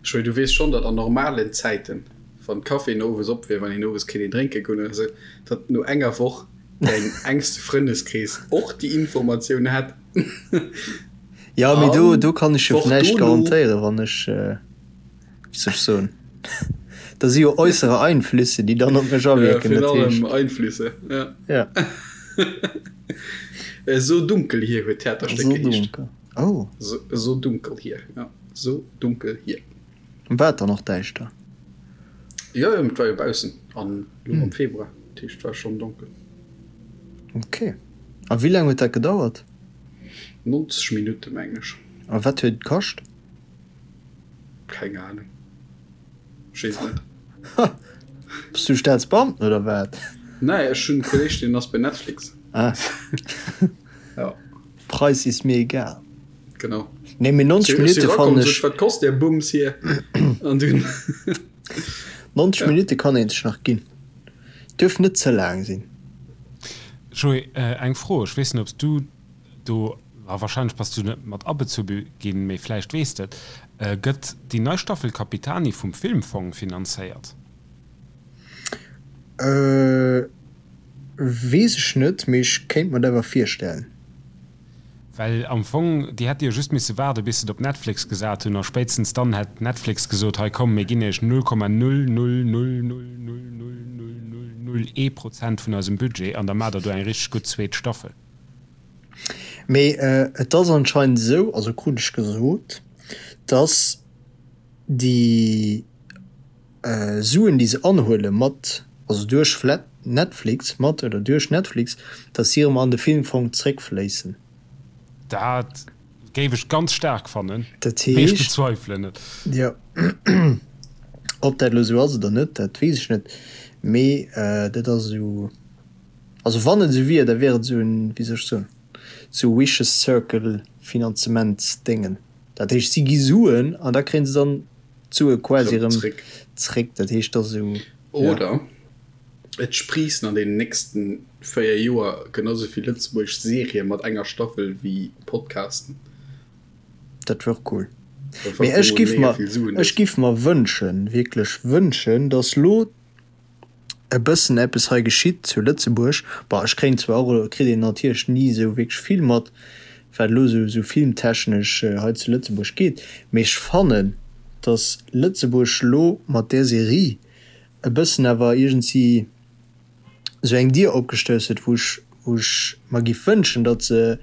Joé, du weess schonn, datt an normalen Zäiten, wann d'Caféen owes op wier, wann een owes kéint een drénke goen oder esou, datt no enger Woch däin engste Frëndeskrees och déi Informatioun hätt. Ja, mee do, do kann ech jo näischt garantéieren, wann ech, wéi soll ech soen, da si jo äussere Einflüsse, déi dann op mech awierken. Ja, virun allem Einflüsse, ja. Ja. So dunkel hier huet d'Theaterstéck geheescht. So dunkel, oh. So, so dunkel hier, ja. So dunkel hier. War et dann och däischter? Jo, jo, et war jo baussen an elo am Februar, dat heescht, et war schonn donkel. Ok. A wéi laang huet dat gedauert? 90 Minutte meng ech. A wat huet et kascht? Keng Ahnung. Ech weess et net. Ha! Bass du Staatsbeamten oder wat? Nee, ech hunn e Kolleeg, deen ass bei Netflix. Ah. Ja. Preis ist mir egal. Genau. Nee, mee 90 Minutte fannen ech. Wat kost der Bums hier? An dunn. 90 Minutte kann een sech nach ginn. Duerf net ze laang sinn. Joé, eng Fro, ech weess net ob s du do, ma wahrscheinlech bass du net mat abezu ginn, mee vläicht weess de et, gëtt déi nei Staffel Capitani vum Filmfong finanzéiert? Weess ech net, mee ech kéint mer et awer virstellen. Well am Fong, déi hätte jo just misse waarde bis se et op Netflix gesat hunn a spéitstens dann hätt Netflix gesot, hei komm mir ginn iech 0,000000001 Prozent vun eisem Budget an da maacht der do eng richteg gutt zweet Staffel. Mee et ass anscheinend esou, also krut ech gesot, dass déi Suen déi se anhuele mat, also duerch Netflix, mat oder duerch Netflix, dass si erëm an de Filmfong zréckfléissen. Dat géif ech ganz staark fannen, Dat mee ech heescht, bezweifelen et. jo, ob dat elo esou ass oder net, dat weess ech net, mee dat ass esou, also wann et esou wier, da wier et esou en, wéi soll ech soen, esou vicious circle Finanzementsdéngen. Dat heescht, si gi Suen an da kréie se dann d'Sue quasi erëm zréck. Dat heescht, dat ass esou, ja. Oder et spriissen an deenen nächsten 4 Joer genau sou vill lëtzebuergesch Serië mat enger Staffel wéi Podcasten. Dat wär och cool. Mee ech giff mer, ech giff mer wënschen, wierklech wënschen, dass lo e bëssen eppes hei geschitt zu Lëtzebuerg. Bon, ech kréien zwar och elo, kritt een natierlech ni esou wierklech vill mat, wat elo esou esou filmtechnesch hei zu Lëtzebuerg geet, mee ech fannen, datt Lëtzebuerg elo mat där Serie e bëssen awer iergendwéi esou eng Dier opgestouss huet, wou ech, wou ech mer giff wënschen, datt se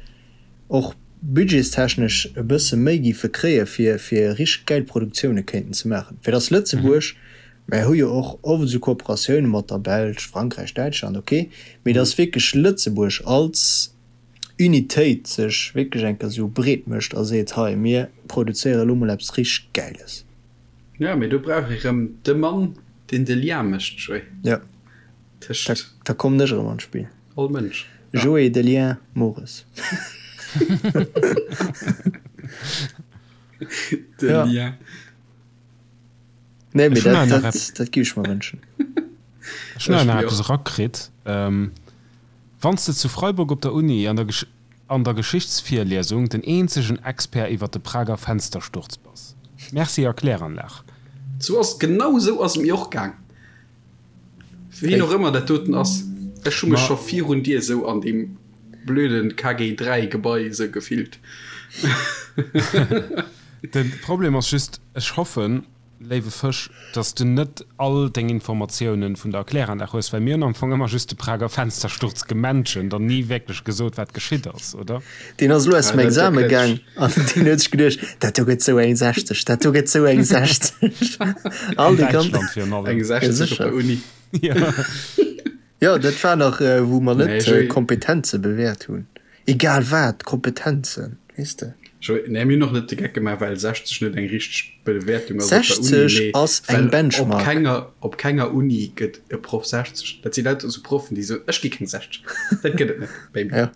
och budgetstechnesch e bësse méi giffe kréie fir, fir richteg gäil Produktioune kéinten ze maachen, fir datt Lëtzebuerg, mär hu jo och oft esou Kooperatioune mat der Belsch, Frankräich, Däitschland, ok, mee datt wierklech Lëtzebuerg als Unitéit sech wierklech eng Kéier esou breet mécht a seet, hei mir produzéiere elo mol eppes richteg Gäiles. Jo, mee do brauch ee rëm de Mann, deen de Lien mécht, Joé. Jo, Tëscht. Da kommen ech erëm an d'Spill. All Mënsch. Joé de Lien Mores. De Lien. Nee, mee dat, dat, dat giff ech mer wënschen. Ech hunn nach eppes erakritt. Wann s de zu Freiburg op der Uni an der an der Geschichtsvirliesung den eenzegen Expert iwwer de Prager Fenstersturz bass. Merci a Kläranlag. Sou ass, genau sou ass et mir och gaang. Wien och ëmmer dat doten ass, ech hu mech scho virun dir sou an deem blöden KG 3 Gebai sou gefillt. De Problem ass just, ech hoffen, léiwe Fësch, dass du net all deng Informatiounen vun der Erkläranlag hues, well mir hunn am Fong ëmmer just de Prager Fenstersturz gementioned an ni wierklech gesot, wat geschitt ass, oder? Deen ass elo aus dem Exame gaang an deen huet sech geduecht, dat do gëtt sou eng 60, dat do gëtt sou eng 60. All déi ganz. An Däitschland virun allem. Eng 60 op der Uni. Ja. Jo, dat war nach, wou mer net Kompetenze bewäert hunn. Egal wat, Kompetenzen, weess de. Nee, mir hunn och net de Geck gemaach, well 60 net eng richteg Bewäertung ass op der Uni. 60 ass eng Benchmark. Op kenger, op kenger Uni gëtt e Proff 60. Dat si lauter esou Proffen, déi soen, ech gi keng 60. Dat gëtt et net bei mir. Ja.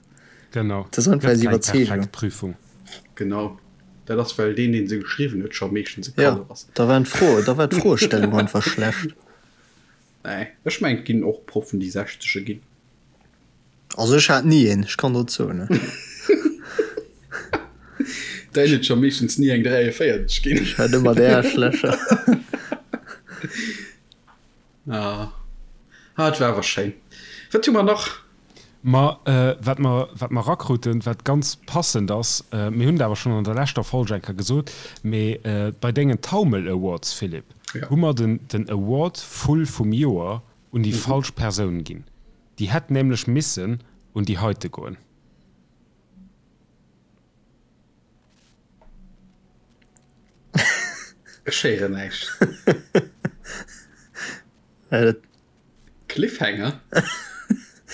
Genau. Dat ass einfach eis Iwwerzeegung. Perfekt Prüfung. Genau. Dat ass, well deen, deen se geschriwwen huet, scho meeschtens e Kalef ass. Ja, da waren d'Froe, da war d'Froestellung einfach schlecht. Nee, ech mengen, et ginn och Proffen, déi 60e ginn. Also ech hat ni een, ech kann der et soen. Däin huet scho meeschtens ni eng 43 ginn. Ech hat ëmmer déi Aarschlächer. Ah, ah, et war awer schéin. Wat hu mer nach? Ma wat mer, wat mer erakruten, wat ganz passend ass, mir hunn et awer schonn an der leschter Folg eng Kéier gesot, mee bei dengen Taumel Awards, Philippe, hu mer den, den Award Vull vum Joer un déi falsch Persoun ginn. Déi hätt nämlech missen un déi heite goen. Ech héieren näischt. Cliffhanger?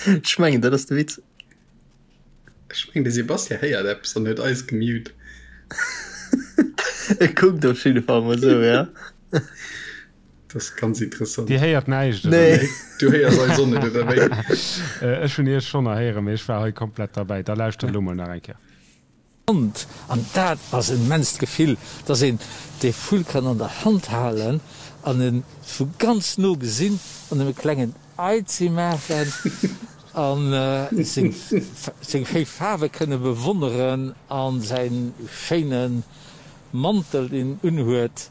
Ech mengen, dat ass de Witz. Ech mengen de Sebastian héiert eppes an huet eis gemute. E kuckt op jidde Fall mol esou, ja. Dat ass ganz interessant. Dir héiert näischt, oder? Nee. Du héiers eis och net, oder wéi? Ech hunn iech schonn erhéieren, mee ech war hei komplett derbäi. Da lauschtert elo mol nach eng Kéier. Hand. An dat ass en immenst Gefill, dass een dee Vull kann an der Hand halen an en vu ganz no gesinn an em e klengen Eizi maachen an seng schéi Faarwe kënne bewonneren an säin schéine Mantel deen en unhuet.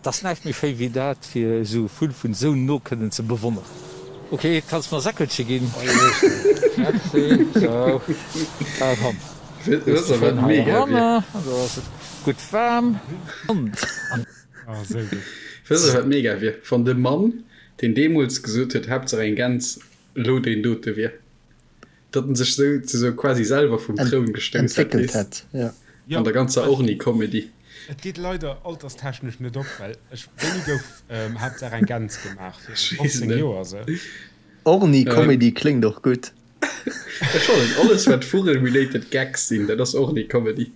't ass näischt méi schéi wéi dat, fir esou e Vull vun esou no kënnen ze bewonneren. Ok, kanns mer e Säckelche ginn? Merci. Sou, a komm, hues de schön hei eranner, an do ass et gutt waarm. Oh, sou gutt. Wëss der wat mega wier? Wann de Mann deen deemols gesot huet Haaptsaach eng Gäns elo deen dote wier. Datt en sech sou ze sou quasi selwer vum Troun gestouss hätt, Entwéckelt hätt, ja. An der ganzer Orni-Comedy. Et geet leider alterstechnesch net op, well ech, wéini gouf Haaptsaach eng Gäns gemaach? Viru 15 Joer sou. Orni-Comedy kléngt och gutt. Ech fannen alles wat Vugel-related Gags sinn, dat ass Orni-Comedy.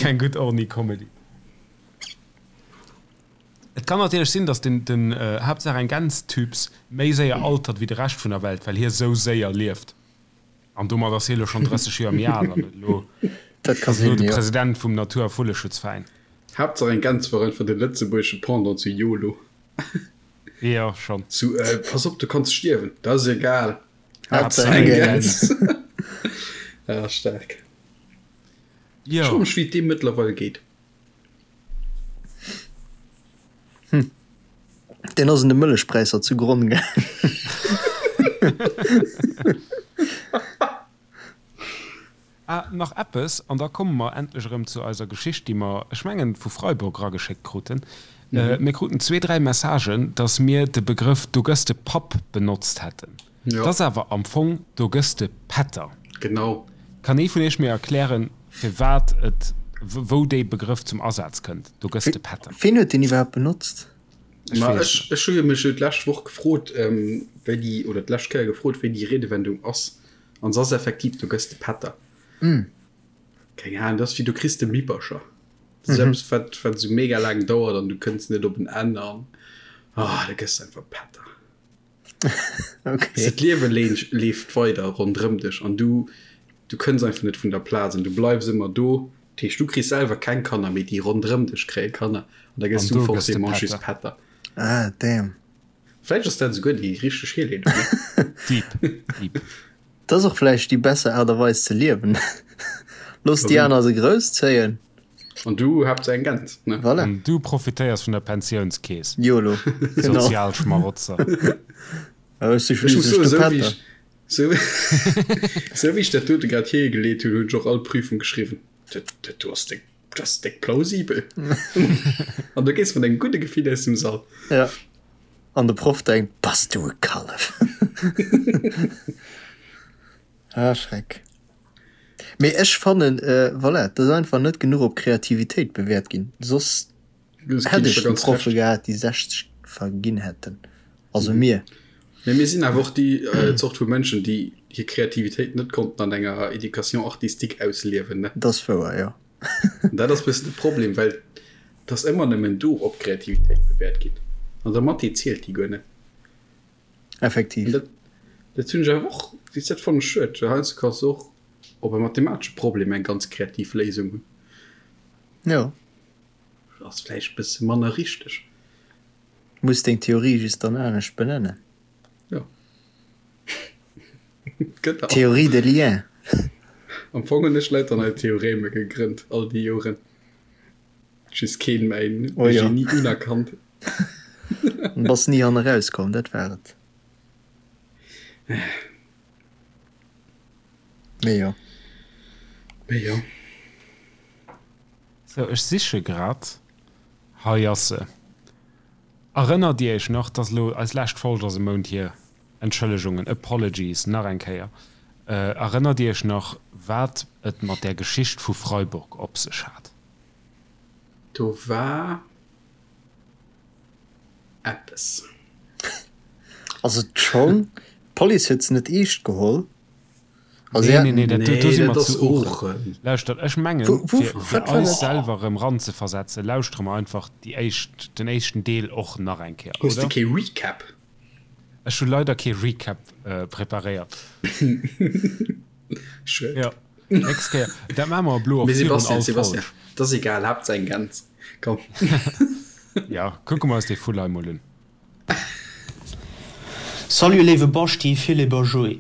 Keng gutt Orni-Comedy. Et kann natierlech sinn, datt den den Haaptsaach eng Gäns-Typs méi séier altert wéi de Rescht vun der Welt, well hie sou séier lieft. An domat ass hie lo schonn 30 Joer méi al an huet elo Dat ka ass elo sinn, de jo. President vum Natur a Vulleschutzveräin. Haaptsaach eng Gäns war einfach de lëtzebuergesche Pendant zu YOLO. Jo, schonn. Zu Pass op, du kanns stierwen. Dat ass egal, Haaptsaach eng Gäns. Ja, staark. Jo. Ech froe mech, wéi et deem mëttlerweil geet. Hm. Deen ass un de Mëllechpräisser zu Gronn gaangen. Ah, nach eppes, an da komme mer endlech erëm zu eiser Geschicht, déi mer, ech mengen, vu Freiburg erageschéckt kruten. Mir kruten zwee, dräi Messagen, dass mir de Begrëff Do gëss de Papp benotzt hätten. Jo. 't ass awer am Fong Do gëss de Pätter. Genau. Kann ee vun iech mir erklären, firwat et, wou dee Begrëff zum Asaz kënnt, Do gëss de Pätter? Ween huet deen iwwerhaapt benotzt? Ech Ma weess ech, net. ech hu jo mech jo d'lescht Woch gefrot, wéi déi, oder d'lescht Kéier gefrot, wéi déi Riedewendung ass. An se ass effektiv Do gëss de Pätter. Keng Ahnung, dat ass wéi Du kriss de Mippercher. Dat ass eppes, wat, wat esou mega laang dauert an du kënns net op en Enn an, ah, da gëss de einfach Pätter. Okay. D'Liewe leeft weider ronderëm dech an du, du kënns einfach net vun der Plaz an du bleifs ëmmer do. Dat heescht, du kriss selwer keng Kanner, mee déi ronderëm dech kréie Kanner an da gëss du forcément just Pätter. Ah, damn. Vläicht ass dat esouguer déi richteg Hierleedung, ne? Deep, deep. Dat ass och vläicht déi besser Aart a Weis ze liewen. Looss déi aner se grousszéien. An du haapts eng Gäns, ne? Voilà. An du profitéiers vun der Pensiounskeess. Yolo, genau. Sozialschmarotzer. Ech si Ech muss schliisslech soen, de esou wéi Pätter. ech, esou, esou wéi ech dat dote grad hiergeleet hunn, hunn ech och all Prüfung geschriwwen. Dat, dat do ass déck, dat ass déck plausibel. An du gees mat engem gudde Gefill aus dem Sall. Ja. An de Proff denkt, Bass du e Kallef! Ah, Schreck. Mee ech fannen, voilà, et ass einfach net genuch op Kreativitéit bewäert ginn. Soss hätt ech déi Proffe gehat, déi 60 verginn hätten. Also mir. Mee mir sinn awer och déi Zort vu Mënschen, déi hir Kreativitéit net konnten an enger Éducation artistique ausliewen, ne? Dat ass wouer, jo. An dat ass e bëssen de Problem, well et ass ëmmer nëmmen do op Kreativitéit bewäert ginn. An der Mathé zielt déi guer net. Effektiv. Dat, dat hunn ech awer och, weess dat fannen ech schued, well heiansdo kanns du och op e mathematesche Problem eng ganz kreativ Léisung hunn. Jo. Ass vläicht e bësse manner richteg. Muss deng Theorie just dann anescht benennen. Jo. Genau. Théorie de lien. Am Fong hunn ech lauter nei Theoreme gegrënnt all déi Joren. Just keen mäin Oh jo. Genie unerkannt. An bass ni han eraus komm, dat war et. Mee jo. Mee jo. Sou, ech siche grad. Hei ass se. Erënnert Dir Iech nach, dass elo eis lescht Folg ass e Mount hier, Entschëllegungen, apologies nach eng Kéier, erënnert Dir Iech nach, wat et mat där Geschicht vu Freiburg op sech hat? Do war eppes. Also d'Schong, d'Police huet se net eescht geholl. Also Nee, nee, nee, dat, Nee, do si dat mer ass zu Oochen. Oochen. Lauschtert, ech mengen, Wou, wou, fir, fir wat war eis dat? selwer erëm ranzeversetzen, lauschtere mer einfach déi éischt, den éischten Deel och nach eng Kéier, Hues de oder? kee Recap? Ech hu leider kee Recap preparéiert. Schued. Jo, nächst Kéier. Dat maache mer elo och Mee virun Sebastian, all Sebastian, Folg. dat ass egal, Haaptsaach eng Gäns. Komm. Jo, kucke mer eis dee Vull hei mol un. Salut léiwe Baschti, Philippe a Joé.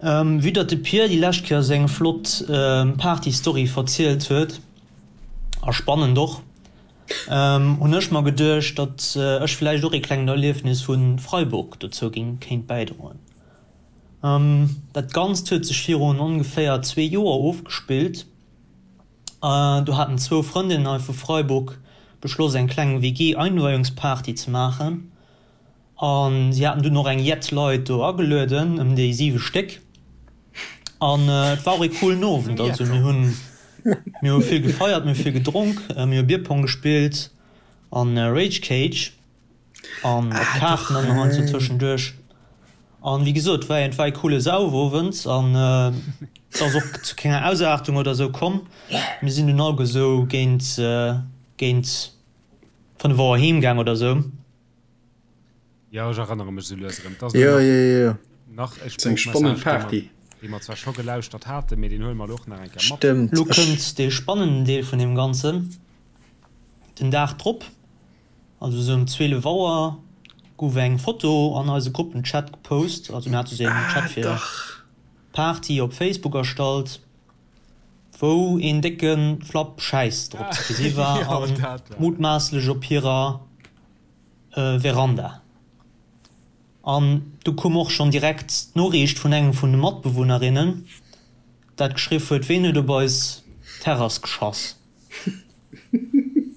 Vue datt de Pir déi lescht Kéier seng flott Party-Story verzielt huet, a spannend och, hunn ech mer geduecht, datt ech villäicht och ee klengen Erliefnis vu Freiburg dozou géing kéint bäidroen. Dat Ganzt huet sech virun ongeféier zwee Joer ofgespillt. Do haten zwou Frëndinnen hei vu Freiburg beschloss eng kleng WG-Einweihungsparty ze maachen a si haten dunn och eng jett Leit do agelueden, ëm déi 7 Stéck. An et war och ee coolen Owend, also mir hunn mir hu vill gefeiert, mir hu vill gedronk, mir hu Bierpong gespillt an Rage Cage an op Kaarten dann nach heiansdo tëschenduerch. An wéi gesot, war et war ee coole Saufowend an et ass och zu kenger Ausaartung oder sou komm. Mir sinn dunn alleguer sou géint géint 5 Auer heem gaang oder sou. Jo, ech erënnere mech sou lues erëm. Et ass Jo, elo jo, jo, jo. nach e Eng spannend Sproochmessage, dee mer, Party. dee mer zwar scho gelauschtert haten, mee deen huele mer elo och nach eng Kéier mat. Stëmmt. Lo Ech. kënnt dee spannenden Deel vun deem Ganzen, den Dag drop. Also sou ëm 12 Auer gouf eng Foto an eise Gruppenchat gepost, also mir hate sou een Chat fir Party op Facebook erstallt, wou een décke Flapp Schäiss drop ze gesi war a mutmaasslech op hirer Veranda. An du koum och schonn direkt d'Noriicht vun engem vun de Matbewunnerinnen, dat geschriff huet, Ween huet op eis Terrass geschass?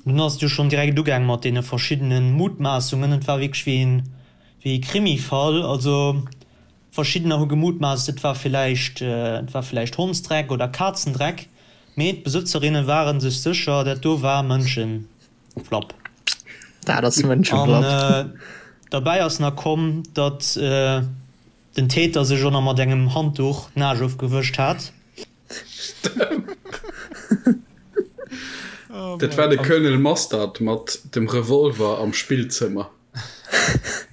Dunn ass et jo schonn direkt ugaang mat deene verschiddene Mutmaassungen. Et war wierklech wéi een, wéi ee Krimifall. Also verschiddener hu gemutmaasst, et war villäicht, et war villäicht Hondsdreck oder Kazendreck, mee d'Besëtzerinne ware sech sécher, dat do war Mënschenflapp. Dat ass Mënschenflapp. An derbäi ass nach komm, datt den Täter sech och nach mat engem Handduch d'Naasch ofgewëscht hat. Dat war de Colonel Mustard mat dem Revolver am Spillzëmmer.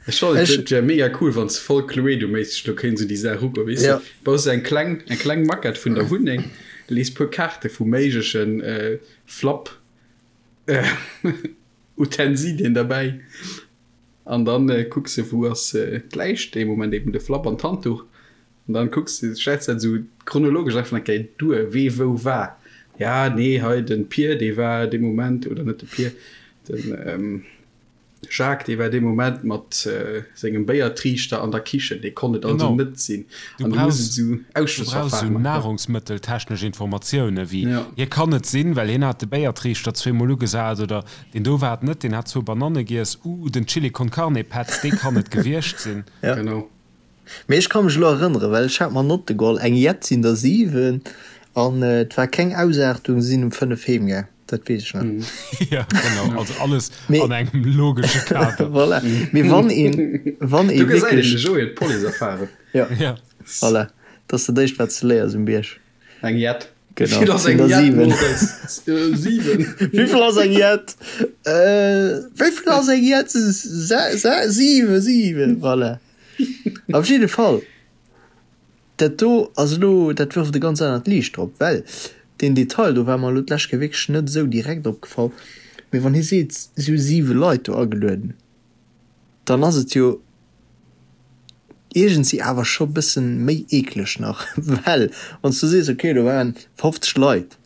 Ech fannen et wär mega cool wann s voll Cluedo-méisseg do kéints un déi Saach ugoen, weess de. Baus eng kleng eng kleng Maquette vun der Wunneng, lees puer Kaarte vu méiglechen Flapp Utensilien derbäi an dann kucks de wou ass d'Läich dee Moment, eben de Flapp an d'Handduch. An dann kucks de, schätz dat esou chronologesch einfach eng Kéier duer, wee wou war. Ja, nee, hei den Pier, dee war dee Moment, oder net de Pier, den Jacques, dee war dee Moment mat sengem Béiertriichter an der Kichen, dee konnt et also Genau. net sinn. Du An du muss brauchs, et esou du brauchs esou Ausschlussverfahren maachen. nahrungsmëtteltechnesch Informatioune wéi, Ja. hie kann et sinn, well hien hat de Béiertriichter zweemol ugesat, oder deen do war et net, deen hat zwou Bananne giess, uh, den Chili con Carne Petz, dee kann et gewiescht sinn. Ja. Genau. Mee ech ka mech elo erënneren, well ech hat mer Notte geholl, eng jett sinn der 7 an et war keng Ausaartung, si sinn um 5 heem gaang, dat weess ech nach. Jo, genau, also alles Mee an engem logesche Kader. Voilà, mee wann een, wann ee Do gesäit een, de wierklech. Joé huet Police-Erfarung. Jo, Ja. voilà, dat ass dat éischt wat s de léiers um Bierg. Eng Jett. Genau, Wéivill ass sinn eng der Jett, 7. Moritz? 7. Wéivill ass eng Jett? Wéivill ass eng Jett? 7, 7, voilà. Op jidde Fall, dat do ass elo, dat wërft e ganz anert Liicht drop, well deen Detail do war mer elo d'lescht Kéier wierklech net esou direkt opgefall, mee wann hie seet, si hu siwe Leit do agelueden, dann ass et jo iergendwéi awer scho bëssen méi eekleg nach, well wann s du sees, okay, do waren 50 Leit,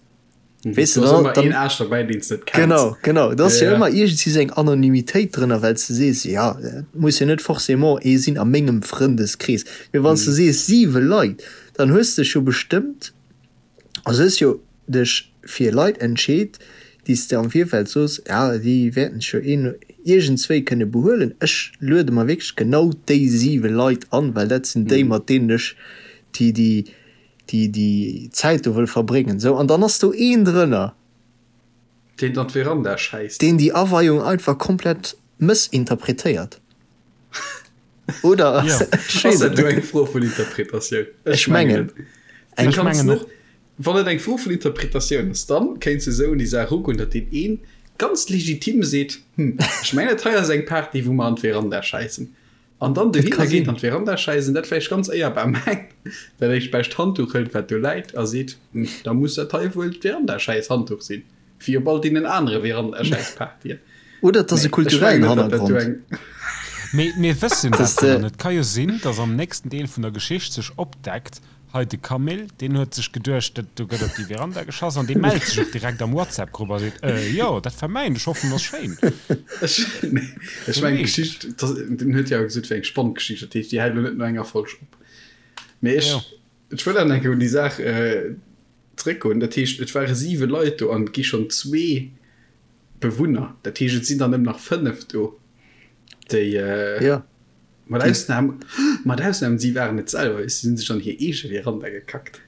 Weess de, Do ass dann, ëmmer dann, een Aarsch derbäi, deen s net kenns. Genau, genau. Da ass jo Ja, ja. ëmmer iergendwéi sou eng Anonymitéit drënner, well s de sees, ja, et muss jo net forcément ee sinn a mengem Frëndeskrees. Mee wann s de sees siwe Leit, dann hues de dech jo bestëmmt, also hues jo dech fir Leit entscheet, déi s de am Virfeld soos, ja, déi wäerten sech jo een, iergendswéi kënne behuelen. Ech luede mer wierklech genau déi siwe Leit an, well dat sinn déi, mat deenen ech déi, déi, déi déi Zäit do wëll verbréngen, sou, an dann ass do een drënner. Deen an d'Veranda schäisst. Deen déi Aweiung einfach komplett mëssinterpretéiert. Oder ass dat do eng Fro vun Interpretatioun? Ech mengen. Ech mengen och. Wann et eng Fro vun Interpretatioun ass, dann kéints de esou un déi Saach erugoen, datt deen een ganz legitim seet, Hm, ech mengen dat hei ass eng Party, wou mer an d'Veranda schäissen. An dann dohinner geet, an d'Veranda schäissen, dat vläicht ganz éierbar mengt, dat éischt bescht Handduch hëlt, wat do läit, a seet, Hm, da muss dat hei wuel d'Verandaschäiss-Handduch sinn, wéi op all deenen anere Verandaschäiss-Partyen. Oder et ass e kulturellen Hannergrond. Mee mir wëssen dat jo net. Et ka jo sinn, datt am nächsten Deel vun der Geschicht sech opdeckt, Hei de Camille, deen huet sech geduecht, dat do gëtt op déi Veranda geschass an dee mellt sech och direkt am WhatsApp-Grupp a seet, Äh, jo, dat war mäin, ech hoffen, ass schéin. Ech mengen, d'Geschicht, den huet jo awer gesot, et wär eng spannend Geschicht, dat heescht, déi hält elo net no enger Folg op. Mee ech, ech wëll awer nach eng Kéier un déi Saach zréckgoen. Dat heescht, et ware siwe Leit do an et gi schonn zwee Bewunner, dat heescht, et sinn der nëmmen nach fënnef do, déi. Mat Ausnam, mat Ausnam, si waren et selwer, si hunn sech an hir eege Veranda gekackt.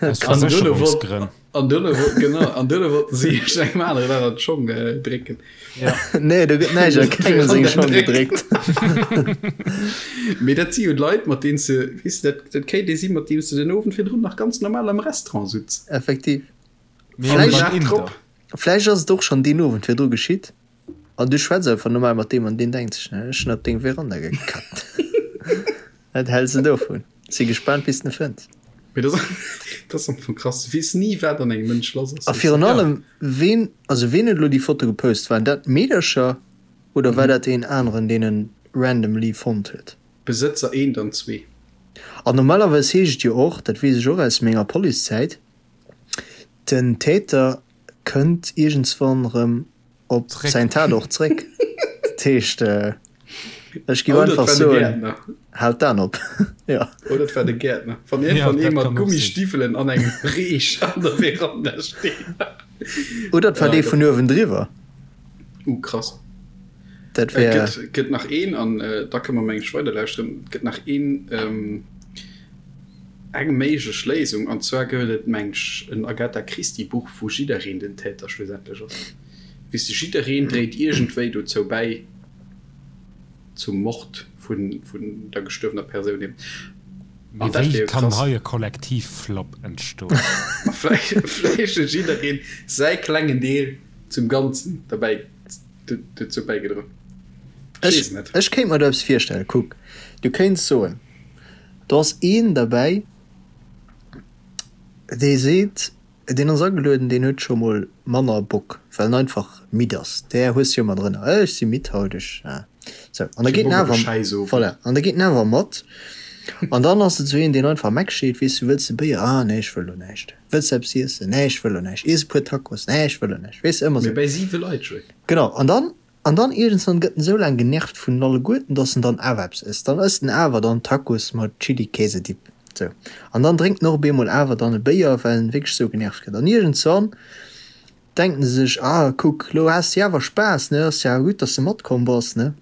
Aus Versécherungsgrënn. An duerno wollten, genau, an duerno wollten si sech engem aneren nach an d'Schong drécken. Ja. Nee, do gëtt näischt a kengem seng Schong gedréckt. Mee dat si jo Leit, mat deenen s de, weess de, dat, dat kéint ee sinn, mat deem s de den Owend virdrun nach ganz normal am Restaurant sutz. Effektiv. Mee beim Inder. Vläicht ass et och schonn deen Owend virdru geschitt. An du schwätz einfach normal mat deem an deen denkt sech, ech hunn op deng Veranda gekackt. Wat häls de dovun? Si gespaant bis de en fënns. Mee dat ass am Fong krass, du weess ni wat an engem Mënsch lass ass. A virun allem ween, also ween huet elo déi Foto gepost? Waren dat d'Meedercher oder war dat een aneren deen en randomly fonnt huet? Besëtzer eent an zwee. An normalerweis heescht et jo och, dat weess ech och aus menger Policezäit, den Täter kënnt iergendswann erëm op säin Tatort zréck. Dat heescht, ech géif einfach soen, haalt d'Aen op. Jo. Oder et war de Gäertner. Wann iergendwann ee mat Gummistiwwelen an engem Reech an der Veranda steet. Oder et war dee vun uewendriwwer. Uh, krass. Dat wär. Et gëtt nach een, an da kënne mer meng ech weiderlauschteren. Et gëtt nach een, eng méiglech Léisung, an zwar gëtt et meng ech en Agatha Christie Buch, wou jiddereen den Täter schlussendlech ass. Weess de, jiddereen dréit iergendwéi dozou bäi, zum Mord vun vun der gestuerwener Persoun eben. Mee An dat wéi wär jo kann krass. hei e Kollektivflop entstoen? Ma vläicht vläicht huet jiddereen säi klengen Deel zum Ganzen derbäi dozou bäigedroen. Ech weess et net. Ech kéint mer do eppes virstellen. Kuck, du kéints soen, do ass een derbäi, dee seet, Deen ass agelueden, deen huet scho mol manner Bock, well en einfach midd ass. Där hues de jo ëmmer drënner, Ech si midd haut, ech sou. An da geet en awer, voilà, an da geet en awer mat. An dann ass et sou een, deen einfach Meck steet, weess du, wëlls de Béier? Ah nee, ech wëll lo näischt. Wëlls de eppes iessen? Nee, ech wëll lo näischt. Iess e puer Tacos? Nee, ech wëll lo näischt. Weess de, ëmmer sou. Mee bäi siwe Leit, Joé. Genau, an dann An dann iergendswann gëtt en esou laang genervt vun alleguerten, dass en dann awer eppes ësst. Dann ësst en awer dann Tacos mat Chili-Käse-Dip. Sou. An dann drénkt en och op eemol awer dann e Béier, well en wierklech esou genervt gëtt. An iergendswann denkt en sech, Ah, kuck, lo has de jo awer Spaass, ne? Ass jo awer gutt, dass de matkomm bass, ne?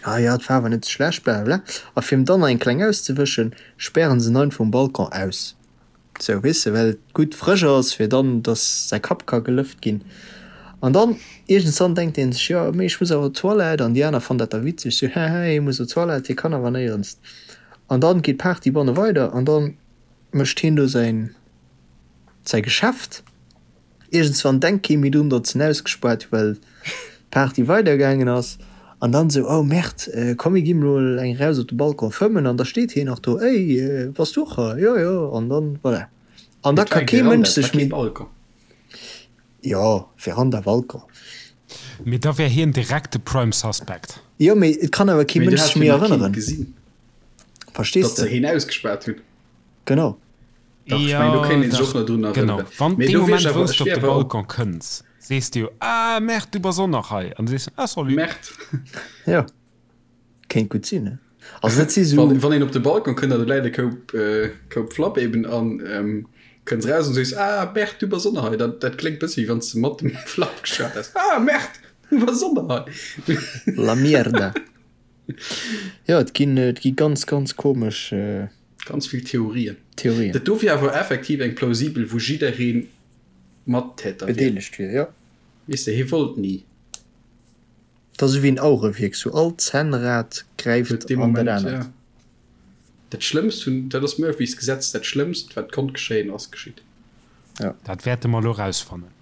Ah jo, et war awer net sou schlecht, blablabla. A fir em dann nach eng kleng auszewëschen, spären se en einfach um Balcon aus. Sou, weess de, well et gutt frësch ass, fir dann, dass säi Kapp ka gelëft ginn. An dann iergendswann denkt hien sech, jo, mee ech muss awer op d'Toilette. An déi aner fannen dat da witzeg, sou, Hehe, hie muss op d'Toilette, hie kann awer néierens. An dann geet d'Party banne weider an dann mécht hien do säin, säi Geschäft. Iergendswann denkt kee méi drun, datt se en ausgespaart hu well d'Party weidergaangen ass. An dann esou, oh Merde, komm mir gi mol eng eraus op de Balcon fëmmen. An da steet hien nach do, ey, bass du och hei? Jo, jo. An dann, voilà. An da ka kee Mënsch sech méi. Jo, Veranda, Balcon. Mee da wär hien direkt de Prime Suspect. Jo, mee et kann awer kee Mënsch sech méi erënneren. Verstees de? Datt se hien ausgespaart hunn. Genau. Dach, ech mengen, do kéint een sech och nach drun Genau, erënneren. wann Mee dee do wier Moment, ech awer, wou s ech de op wier de awer och. Balcon kënns, sees de jo, Ah, Merde, du bass och nach hei. An du sees, Ah, salut. Merde. Jo, kéint gutt sinn, ne? Also dat si sou. Wann, wann een op de Balcon kënnt an do läit e Koup, Koup Flapp eben an kënns eraus an sees, Ah, Merde, du bass och nach hei. Dat, dat kléngt bëssi, wéi wann s de mat dem Flapp geschwat häss. Ah, Merde, du bass och nach hei. La mierda. Jo, et ginn, et gi ganz, ganz komesch. Ganz vill Theorien. Theorien. Dat do wier awer effektiv eng plausibel, wou jidderee Mattäter wier. Bedeelegt wier, jo. Weess de, hie wollt ni. Dat ass esou wéi en Auerewierk, sou all Zännrad gräift. gräift an dat anert. Dat Schlëmmst vun, dat ass Murphys Gesetz, dat Schlëmmst wat konnt geschéien ass geschitt. Dat wäerte mer elo rausfannen.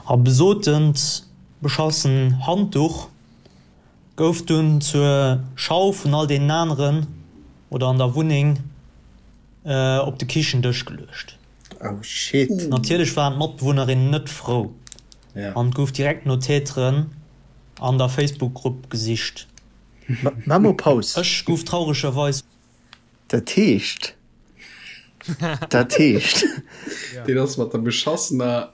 A besotent beschassen Handduch gouf dunn zur Schau vun all deenen aneren oder an der Wunneng op de Kichendësch geluecht. Oh shit. Natierlech waren d'Matbewunnerinnen net frou an et gouf direkt no Täteren an der Facebook-Grupp gesicht. Maa mol Paus. Ech gouf trauregerweis. Dat heescht, dat heescht. Deen ass mat der beschassener,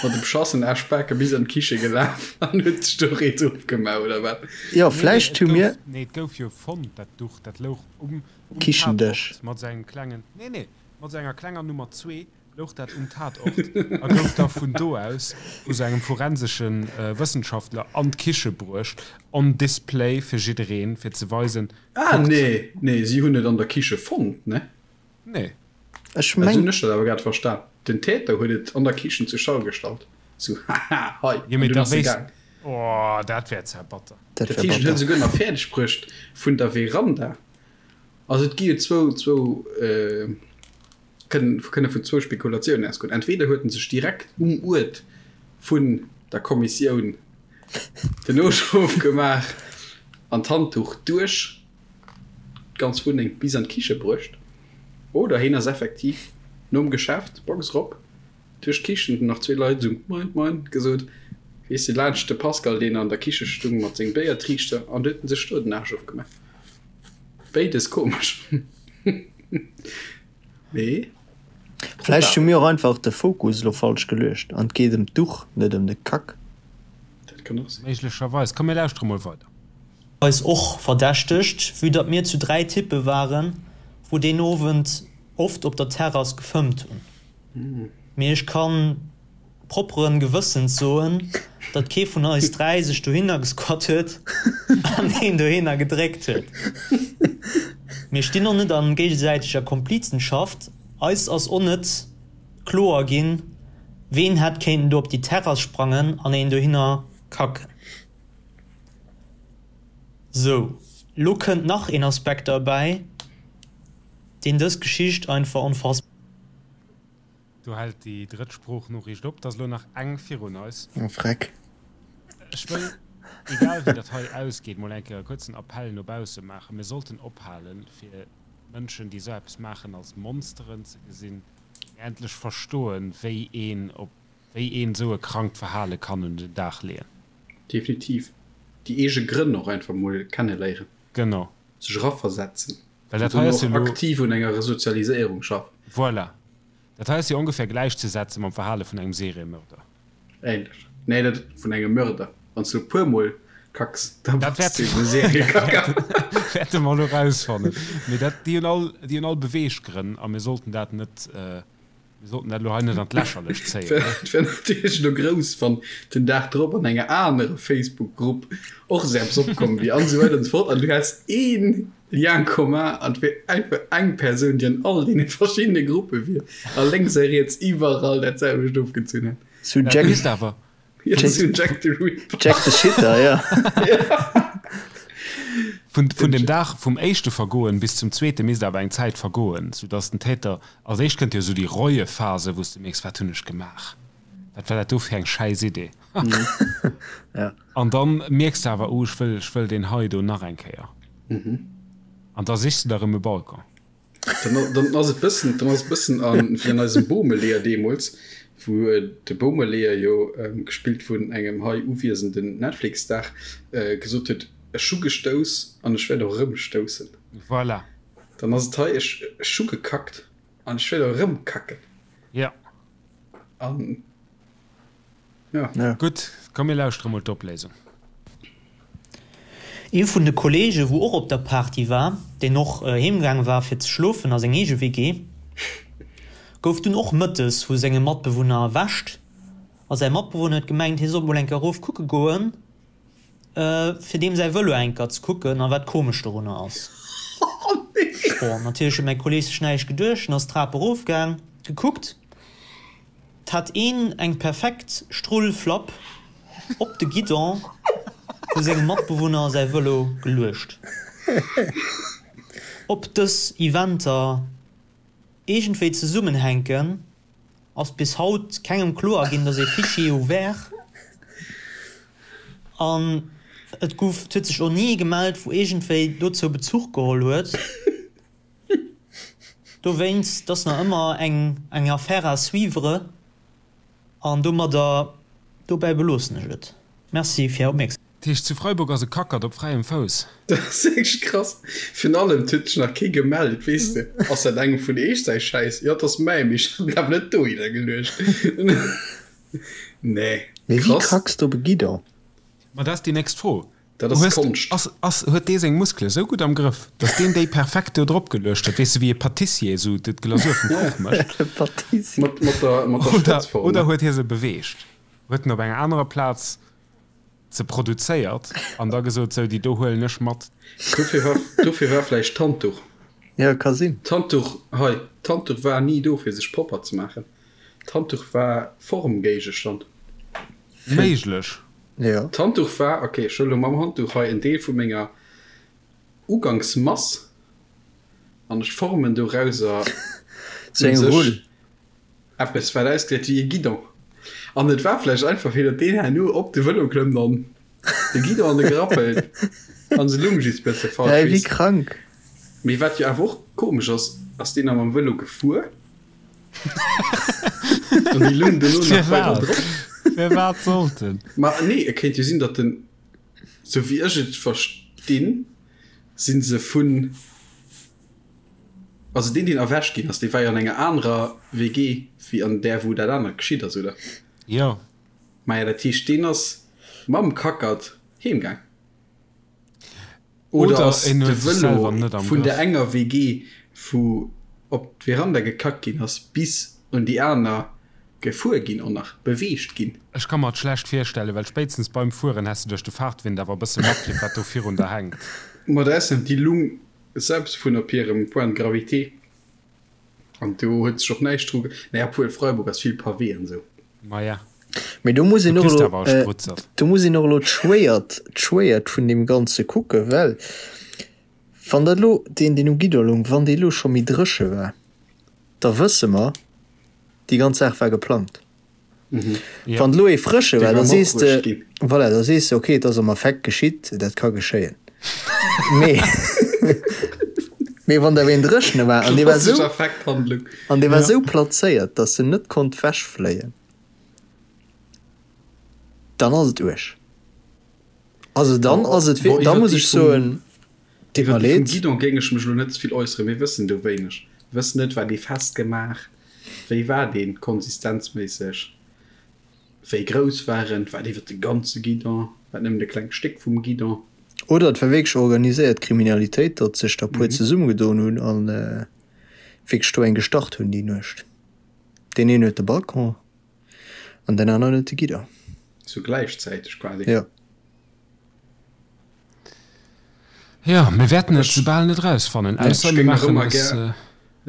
mat de beschassenen Aschbake bis an d'Kiche gelaf an huet sech do Rees ofgemaach, oder wat? Jo, vläicht hu mir. Nee, et gouf jo fonnt, dat Duch, dat louch um Kichendësch. Tatort mat sou engem klengen, nee, nee, mat sou enger klenger Nummer zwee louch dat um Tatort a gouf da vun do aus vu sou engem forensesche Wëssenschaftler an d'Kiche bruecht, on display fir jiddereen, fir ze weisen, Ah, kuckt. nee, nee, si hunn et an der Kiche fonnt, ne? Nee. Ech Esou meng. hunn ech dat awer grad verstan. Den Täter huet et an der Kichen zur Schau gestallt, sou, haha, hei, Jo, an mee dunn da ass e wéisst. gaang. Oh, dat wär zwar batter. Dat Dat wär heescht, en huet batter. esouguer nach fäerdeg bruecht vun der Veranda. Also et gi jo zwou, zwou, kënnen, kënne vun zwou Spekulatiounen ausgoen. Entweder huet en sech direkt um Uert vun der Kommissioun den Noschrof gemaach an d'Handduch duerch d'ganz Wunneng bis an d'Kiche bruecht, oder hien ass effektiv nom Geschäft, Box erop, duerch d'Kichen, hunn nach zwee Leit esou Moin, Moin gesot, weess de, laanscht de Pascal, deen an der Kiche stung mat sengem Béiertriichter, an du huet en sech do den Aarsch ofgemaach. Béides komesch. Mee Vläicht hu mir och einfach de Fokus elo falsch geluecht an et geet ëm d'Duch, net ëm de Kack. Dat kann och sinn. Méiglecherweis. Komm mir lauschtere mol weider. Eis och verdächtegt, vue datt mir zu 3 Typpe waren, wou deen Owend oft op der Terrass gefëmmt hunn. Mee ech kann propperen Gewëssens soen, datt kee vun eis 3 sech dohinner gesquat huet an een dohinner gedréckt huet. Mir stinn och net an géigesäiteger Komplizenschaft, eis ass och net kloer ginn, ween hätt kéinten do op déi Terrass sprangen an een dohinner kacken. Sou, lo kënnt nach een Aspekt derbäi, deen dës Geschicht einfach onfassbar. Do hält déi drëtt Sproochnoriicht op. Et ass elo nach eng virun eis. Oh Freck. Ech wëll, egal wéi dat hei ausgeet, mol eng Kéier e kuerzen Appell no bausse maachen. Mir sollten ophalen, fir Mënschen, déi esou eppes maachen, als Monsteren ze gesinn, mee endlech verstoen, wéi een op, wéi een esou e krankt Verhale kann un den Dag leeën. Definitiv. Déi eege Grënn och einfach mol kenneléieren. Genau. Sech eraversetzen. Well dat hei ass jo elo. Aktiv un enger Resozialiséierung schaffen. Voilà. Dat hei ass jo ongefähr gläichzesetze mam Verhale vun engem Seriemörder. Ähnlech. Nee, net vun engem Mörder. Wann s du e puer Mol kacks, da Dat bass du eben e Seriekacker. wäerte mer elo rausfannen. Mee dat, déi hunn all, déi hunn all Beweeggrënn a mir sollten dat net, Mir sollten dat elo hei net an d'Lächerlecht zéien, ne? Et wär natierlech elo grouss, wann den Dag drop an enger anerer Facebook-Grupp och esou eppes opkomm wier an esou weider an esou fort an du häss ee Lien commun an et wier einfach eng Persoun, déi an all deene verschiddene Gruppe wier a lénks a riets iwwerall dat selwecht ofgezunn hätt. Sou Jack, Misst awer. Jack the Ripper. Jack the Shitter, ja. Vun, vun dem Dag vum éischte Vergoen bis zum zweete misst awer eng Zäit vergoen, soudass den Täter, als éischt kënnt jo esou déi Reuephase, wou s de mierks, wat hunn ech gemaach, wat war dat do fir eng schäiss Idee. Ja. An dann mierks de awer, oh ech wëll, ech wëll deen hei do nach eng Kéier. An da sichs de der erëm e Balcon. Dann, dann ass et bëssen, dann ass et bëssen an, wéi an eisem Bommeleeër deemools, wou de Bommeleeër jo, gespillt vun engem hei uwiesenden Netflix-Star, gesot huet, Ech hu gestouss an ech wäert och erëm stoussen. Voilà. Dann ass et hei, Ech, ech hu gekackt an ech wäert och erëm kacken. Ja. An. Ja. Gutt, komm mir lauschtere mol d'Opléisung. Ee vun de Kollege wou och op der Party war, deen och heem gaang war fir ze schlofen a seng eege WG, gouf dunn och mëttes vu sengem Matbewunner erwächt a säi Matbewunner huet gemengt hie sollt mol enker erof kucke goen fir deem säi Vëlo enker ze kucken a wat komesch dorunner ass. Bon, natierlech huet mäi Kolleg sech näischt geduecht en ass d'Trap erof gaang, gekuckt. 't hat een eng perfekt Strullflapp op de Guidon. Vu sengem Matbewunner säi Vëlo geluecht. Ob dës Eventer iergendwéi zesummenhänken, ass bis haut kengem kloer ginn, et ass ee Fichier ouvert an et gouf, et huet sech och ni ee gemellt, wou iergendwéi dozou Bezuch geholl huet. Dowéinst, et ass nach ëmmer eng eng Affaire à suivre an domadder, dobäi beloossen ech et. Merci fir Är Opmierksamkeet. Dat heescht, zu Freiburg ass e Kackert op fräiem Fouss. Dat ass wierklech krass. Virun allem, et huet sech nach kee gemellt, weess de. Ass dat engem vun eech säi Schäiss? Jo, et ass mäi, mee ech hat en awer net dohinner geluecht. Nee, Mee wéi krass. kracks de op e Guidon? Ma dat ass déi nächst Fro. Dat ass Hues, Konscht. ass, ass, huet dee seng Muskele sou gutt am Grëff, datt deen déi perfekt do drop geluecht huet, weess de, wéi e Patissier sou d'Glasur vum Kuch mécht? E Patissier. Mat, mat der, mat der Oder, Spëtzform, oder ne? huet hie se beweegt? Huet en op enger anerer Plaz se produzéiert an da gesot, sou, déi do huelen ech mat. Dofir war, dofir war vläicht d'Handduch. Jo, ka sinn. D'Handduch, hei, d'Handduch war ni do, fir sech propper ze maachen. D'Handduch war Formgéigestand. Méiglech. Jo. D'Handduch war, ok, ech huele lo mam Handduch hei en Deel vu menger Ugangsmass an ech formen dorauser Sou eng u sech Rull. Eppes wat ausgesäit wéi e Guidon. An et war vläicht einfach fir datt deen herno op de Vëlo klëmmt an de Guidon an de Grapp hëlt an se lung just bësse falsch, Hä, wéi weess de. krank. Mee wat jo awer och komesch ass, ass deen da mam Vëlo gefuer an déi lung dono nach weider Firwat? drop? Firwat sollt en? Ma nee, et kéint jo sinn, datt en, sou wéi ech et verstinn, si se vun. Also deen deen erwächt ginn ass, dee war jo an enger anerer WG wéi an där wou dat anert geschitt ass, oder? Jo. Maja, dat heescht deen ass mam Kackert heem gaang. Oder Oder ass en de huet sech Vëlo selwer net am vun der Grëff. enger WG wou op d'Veranda gekackt ginn ass bis un déi aner gefuer ginn och nach beweegt ginn? Ech ka mer et schlecht virstellen, well spéitstens beim Fueren häss de duerch de Fahrtwind awer e bësse matkritt wat do virun der hänkt. Ma da ass déi Lung Selbst vun op hirem Point de gravité, an do huet sech och näischt dru, naja, obwuel Freiburg ass vill Pavé an esou. Maja, Mee do muss do een och kriss de elo, awer e Sprutzert. do muss een och elo d'Schwéiert, d'Schwéiert vun deem Ganze kucken, well wann dat elo, deen, deen um Guidon loung, wann dee elo scho méi dréche war, da wësse mer, déi ganz Saach war geplangt. Wann elo ee frësche war, da sees de, voilà, da sees de, okay, et ass am Affekt geschitt, dat ka geschéien. Mee, mee wann der een dréchene war an dee war esou, an dee war esou plazéiert, datt en net konnt wechfléien, dann ass et uerg. Also dann ass et, da muss ech soen, deet mer Iwwer déi vum leed. Guidon géing ech mech elo net ze vill äusseren. Mir wëssen do wéineg. Mir wëssen net, war dee festgemaach? Wéi war deen konsistenzméisseg? Wéi grouss war en? War et iwwer de ganze Guidon? War et nëmmen e klengt Stéck vum Guidon? Oder et war wierklech organiséiert Kriminalitéit, datt sech der puer zesummegedoen hunn a wierklech do eng gestart hunn déi Nuecht. Deen een huet de Balcon an deen aneren huet de Guidon. Sou gläichzäiteg quasi? Jo. Jo, mir wäerten et soubal net erausfannen, ausser Ech mir géing nach maachen ëmmer eis. gär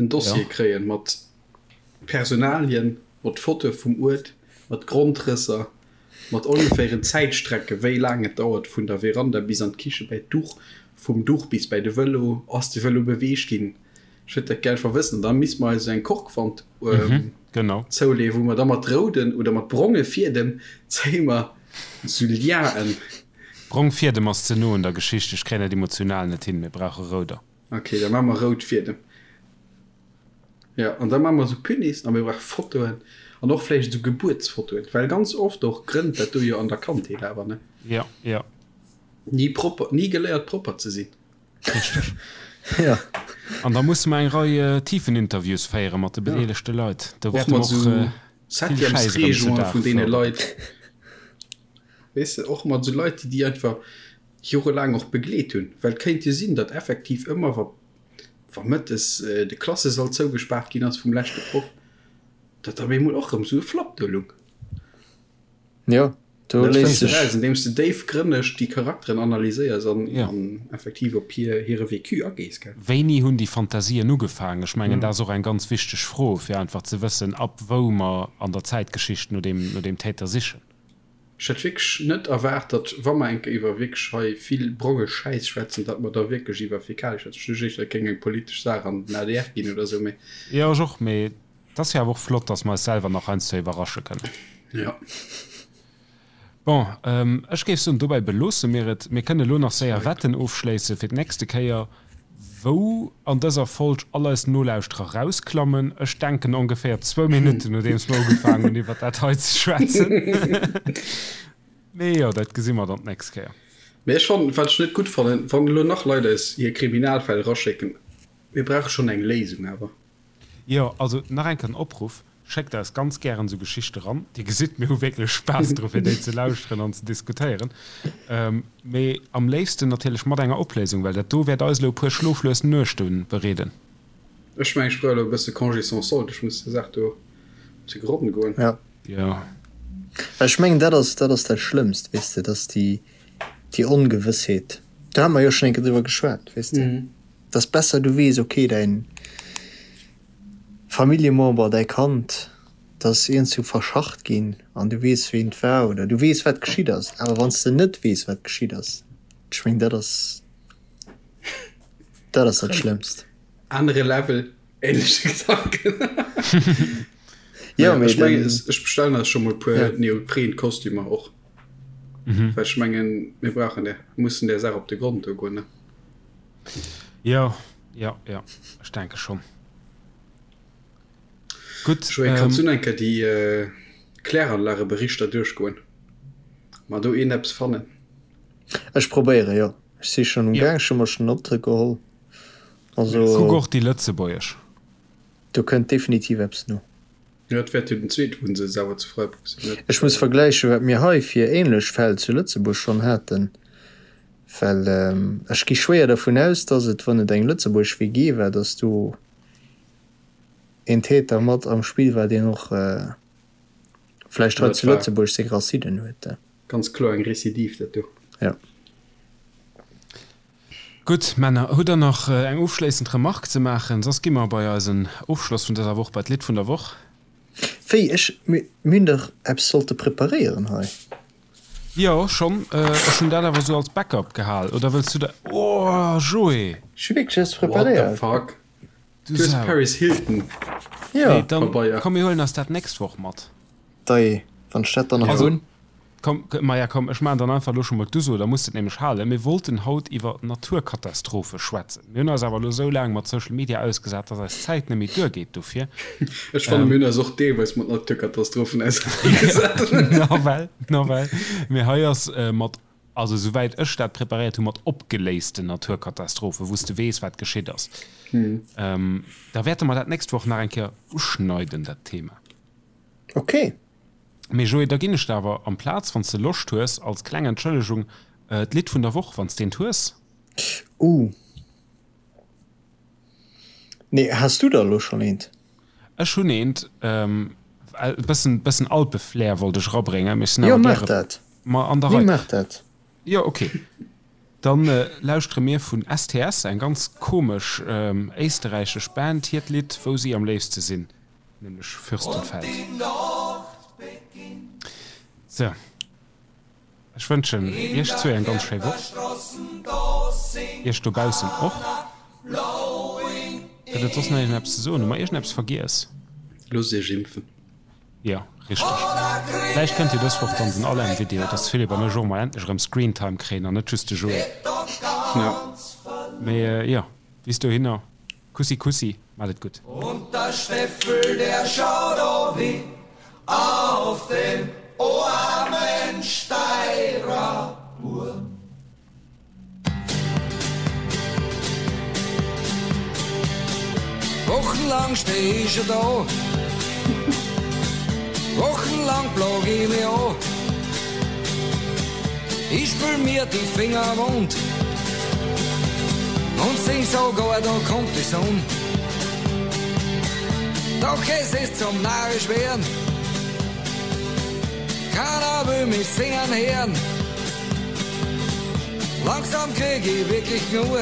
en Dossier kréien mat Personalien, mat Fotoe vum Uert, mat Grondrësser, mat ongeféieren Zäitstrecke wéi laang et dauert vun der Veranda bis an d'Kiche bäi d'Duch, vum Duch bis bäi de Vëlo, ass de Vëlo beweegt ginn? Ech wëllt dat gär einfach wëssen. An da misste mer eis esou eng Korkwand zouleeën, wou mer da mat rouden oder mat bronge Fiedem zéie mer esou Liaen. Brong Fiedem ass ze no un der Geschicht, ech kréien dat emotional net hin, mir brauche rouder. Ok, da maache mer rout Fiedem. Jo, an da maache mer esou Punis a mir brauche Fotoen an och vläicht esou Gebuertsfotoen, well ganz oft och grënnt dat do jo an der Kandheet awer, ne? Jo, jo. Ni propper, ni geléiert propper ze sinn. Richteg. Jo. An da musse mer eng Rei Tiefeninterviews féiere mat de bedeelegte Leit. Do Och wäerte mer mat och esou vill Schäiss erëm zu Septièmesreegungen Dag vun deene fërderen. Leit. Weess de, och mat esou Leit, déi déi einfach jorelaang och begleet hunn. Well et kéint jo sinn, datt effektiv ëmmer, wa wa mëttes de Klassesall zougespaart ginn ass vum leschte Proff, datt op eemol och erëm esou e Flapp do lung. Jo, do Dat léisst fënns de sech. raus, andeems de déifgrënneg déi Charakteren analyséiers an Ja. an effektiv op hir hire Vécu agees, gell? Wéini hunn déi Fantasien ugefaangen? Ech mengen, dat ass och eng ganz wichteg Fro, fir einfach ze wëssen, ab wou mer an der Zäitgeschicht no deem no deem Täter sichen. Ech hätt wierklech net erwaart, datt, wa mer eng Kéier iwwer wierklech hei vill bronge Schäiss schwätzen, datt mer da wierklech iwwer Fäkalie schwätzen. Ech duecht éischter, et géing eng politesch Saach an den adr ginn oder esou, mee. Jo, ech och, mee et ass jo awer och flott, datt mer eis selwer nach heiansdo iwwerrasche kënnen. Jo. Bon, ech géif soen, dobäi beloosse mir et. Mir kënne elo nach séier Wetten ofschléisse fir d'nächste Kéier, wou an dëser Folg all eis Nolauschterer rausklammen. Ech denken ongeféier zwou Minutten, nodeems mer ugefaangen hunn, iwwer dat hei ze schwätzen. Mee jo, dat gesi mer dann d'nächst Kéier. Mee ech fannen, wat ech net gutt fannen, wann elo nach Leit eis hir Kriminalfäll eraschécken, mir brauche schonn eng Léisung awer. Jo, also nach eng Kéier den Opruff, Schéckt eis ganz gären esou Geschichte ran. Dir gesitt, mir hu wierklech Spaass dru fir déi ze lauschteren an ze diskutéieren. Mee am léifsten natierlech mat enger Opléisung, well dat do wäert eis elo e puer schloflues Nuechte bereeden. Ech mengen, ech brauch elo e bësse Congé sans solde, ech muss der Saach do op de Gronn goen. Jo. Jo. Well ech mengen, dat ass, dat ass dat Schlëmmst, weess de, dass déi, déi Ongewëssheet, do hate mer jo schonn eng Kéier driwwer geschwat, weess de, dass besser du weess, okay, däin, Familljemember, däi Kand, dat ass iergendwou verschacht ginn an du weess ween et war oder du weess wat geschitt ass. Awer wann s de net weess wat geschitt ass, ech meng dat ass dat ass dat Schlëmmst. Anere Level, ähnleche Gedanken. Jo, mee Ech mengen, den. ech bestellen eis scho mol e puer Neopren-Kostümer och, well ech mengen, mir brauchen där, mussen där Saach op de Grond do goen, ne? Jo, jo, jo, ech denke schonn. Gutt. Joé, kanns du nach eng Kéier déi Kläranlageberichter duerchgoen? Mer do een eppes fannen? Ech probéieren, jo. Ech si schonn um Gaang, ech hu mer schonn Notte geholl. Also. Kuck och déi lëtzebuergesch. Do kënnt definitiv eppes no. Jo, et wäert jo den zweete Wunnsëtz awer zu Freiburg sinn, net? Ech muss vergläichen, wat mir hei fir ähnlech Fäll zu Lëtzebuerg schonn haten, well ech gi schwéier dervun aus, dass et, wann et eng lëtzebuergesch WG war, dass do een Täter mat am Spill war, deen och vläicht hei zu Lëtzebuerg seng Racinen huet. Ganz kloer eng Recidive, dat do. Jo. Gutt, Männer, hutt der nach eng ofschléissend Remark ze maachen? Soss gi mer bei eisen Ofschloss vun dëser Woch, bei d'Lidd vun der Woch. Wéi, ech, mir hunn dach eppes sollte preparéieren hei. Jo, schonn. Ech hunn dat awer esou als Backup gehal. Oder wëlls du da, oh, Joé! Ech hu wierklech eppes What the preparéiert. fuck? Du Du hues Sau. Paris Hilton Jo. Nee, dann, Pabeier. komm, mir huelen eis dat d'nächst Woch mat. Dei, wann ech dat dann nach Also, hunn. Komm, maja komm, ech maachen dann einfach elo scho mol d'Uso, da muss de et nämlech halen. Mir wollten haut iwwer Naturkatastrophe schwätzen. Mir hunn eis awer elo esou laang mat Social Media ausgesat, dass eis Zäit net méi duergeet dofir. Ech fannen, mir hunn eis och deelweis mat Naturkatastrophen auserneegesat. Nawell, nawell. Mee hei ass mat, also esouwäit ech dat preparéiert hunn, mat opgeléisten Naturkatastrophen, wou s de weess, wat geschitt ass. Da wäerte mer dat d'nächst Woch nach eng Kéier uschneiden, dat Thema. Ok. Mee Joé, da ginn ech der awer amplaz, wann s de Loscht hues, als kleng Entschëllegung, d'Lidd vun der Woch, wann s d'eent hues. Uh. Nee, has du der elo schonn eent? Ech hunn eent. E bëssen, bëssen Alpeflair wollt ech erabréngen, mee ech sinn Jo, awer maach gäre dat. ma an der Nee, Rei. maach dat. Jo, ok. Dann lauschtere mir vun STS, eng ganz komesch éisterräichesch Band, hiert Lidd Wou si am léifste sinn. Nämlech Fürstenfeld. Sou, ech wënschen iech zwee eng ganz schéi Woch, iech dobaussen och. Gëtt et soss nach iergendeppes ze soen? Hu mer iergendeppes vergiess? Loosst iech impfen. Jo, richteg. Vläicht kënnt jo dës Woch dann den Alain-Video, dass de Philippe an ech och mol endlech erëm Screentime kréien an net just de Joé. Mee jo, bis dohinner. Kussi Kussi, mat et gutt. Und der Steffel, der schaut o weh auf den oarmen Steirer Bur. Wochenlang steh ich schon da, wochenlang plag ich mich an. Ich spül mir die Finger wund und sing sogar, da kommt die Sonne. Doch es ist zum narrisch werden, keiner will mich singen hören. Langsam krieg ich wirklich genug.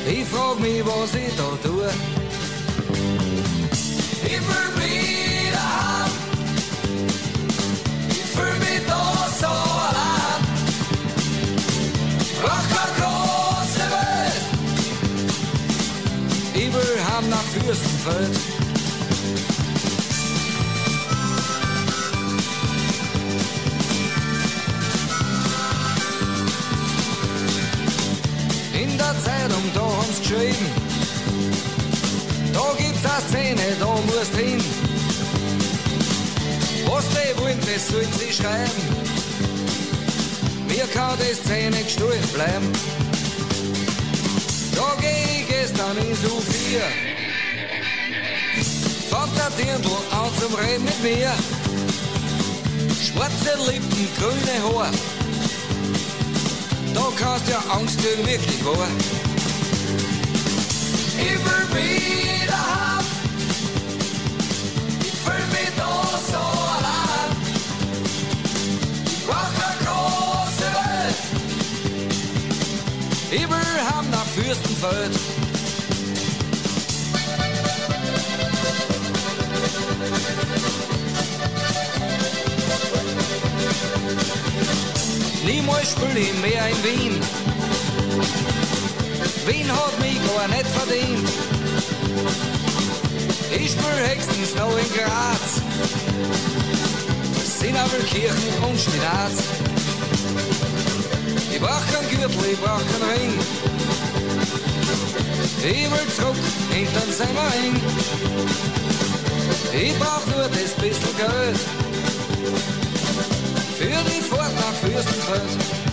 Ich frag mich, was ich da tue. Ich will wieder heim. Fürstenfeld. In der Zeitung, da haben's geschrieben, da gibt's a Szene, da musst hin. Was die wollen, das sollen sie schreiben. Mir kann die Szene gestohlen bleiben. Da geh ich gestern ins U4. Fangt der Dirndl an zum Reden mit mir. Schwarze Lippen, grüne Haar. Da kannst ja Angst kriegen, wirklich wahr. Ich will wieder heim. Ich fühl mich da so allein. Ich brauch keine große Welt. Ich will heim nach Fürstenfeld. Niemals spiel ich mehr in Wien. Wien hat mich gar nicht verdient. Ich spiel höchstens noch in Graz. Sinabelkirchen und Spinat. Ich brauch kein Gürtel, ich brauch keinen Ring. Ich will zurück hintern Semmering. Ich brauch nur das bissl Geld für die Fahrt nach Fürstenfeld.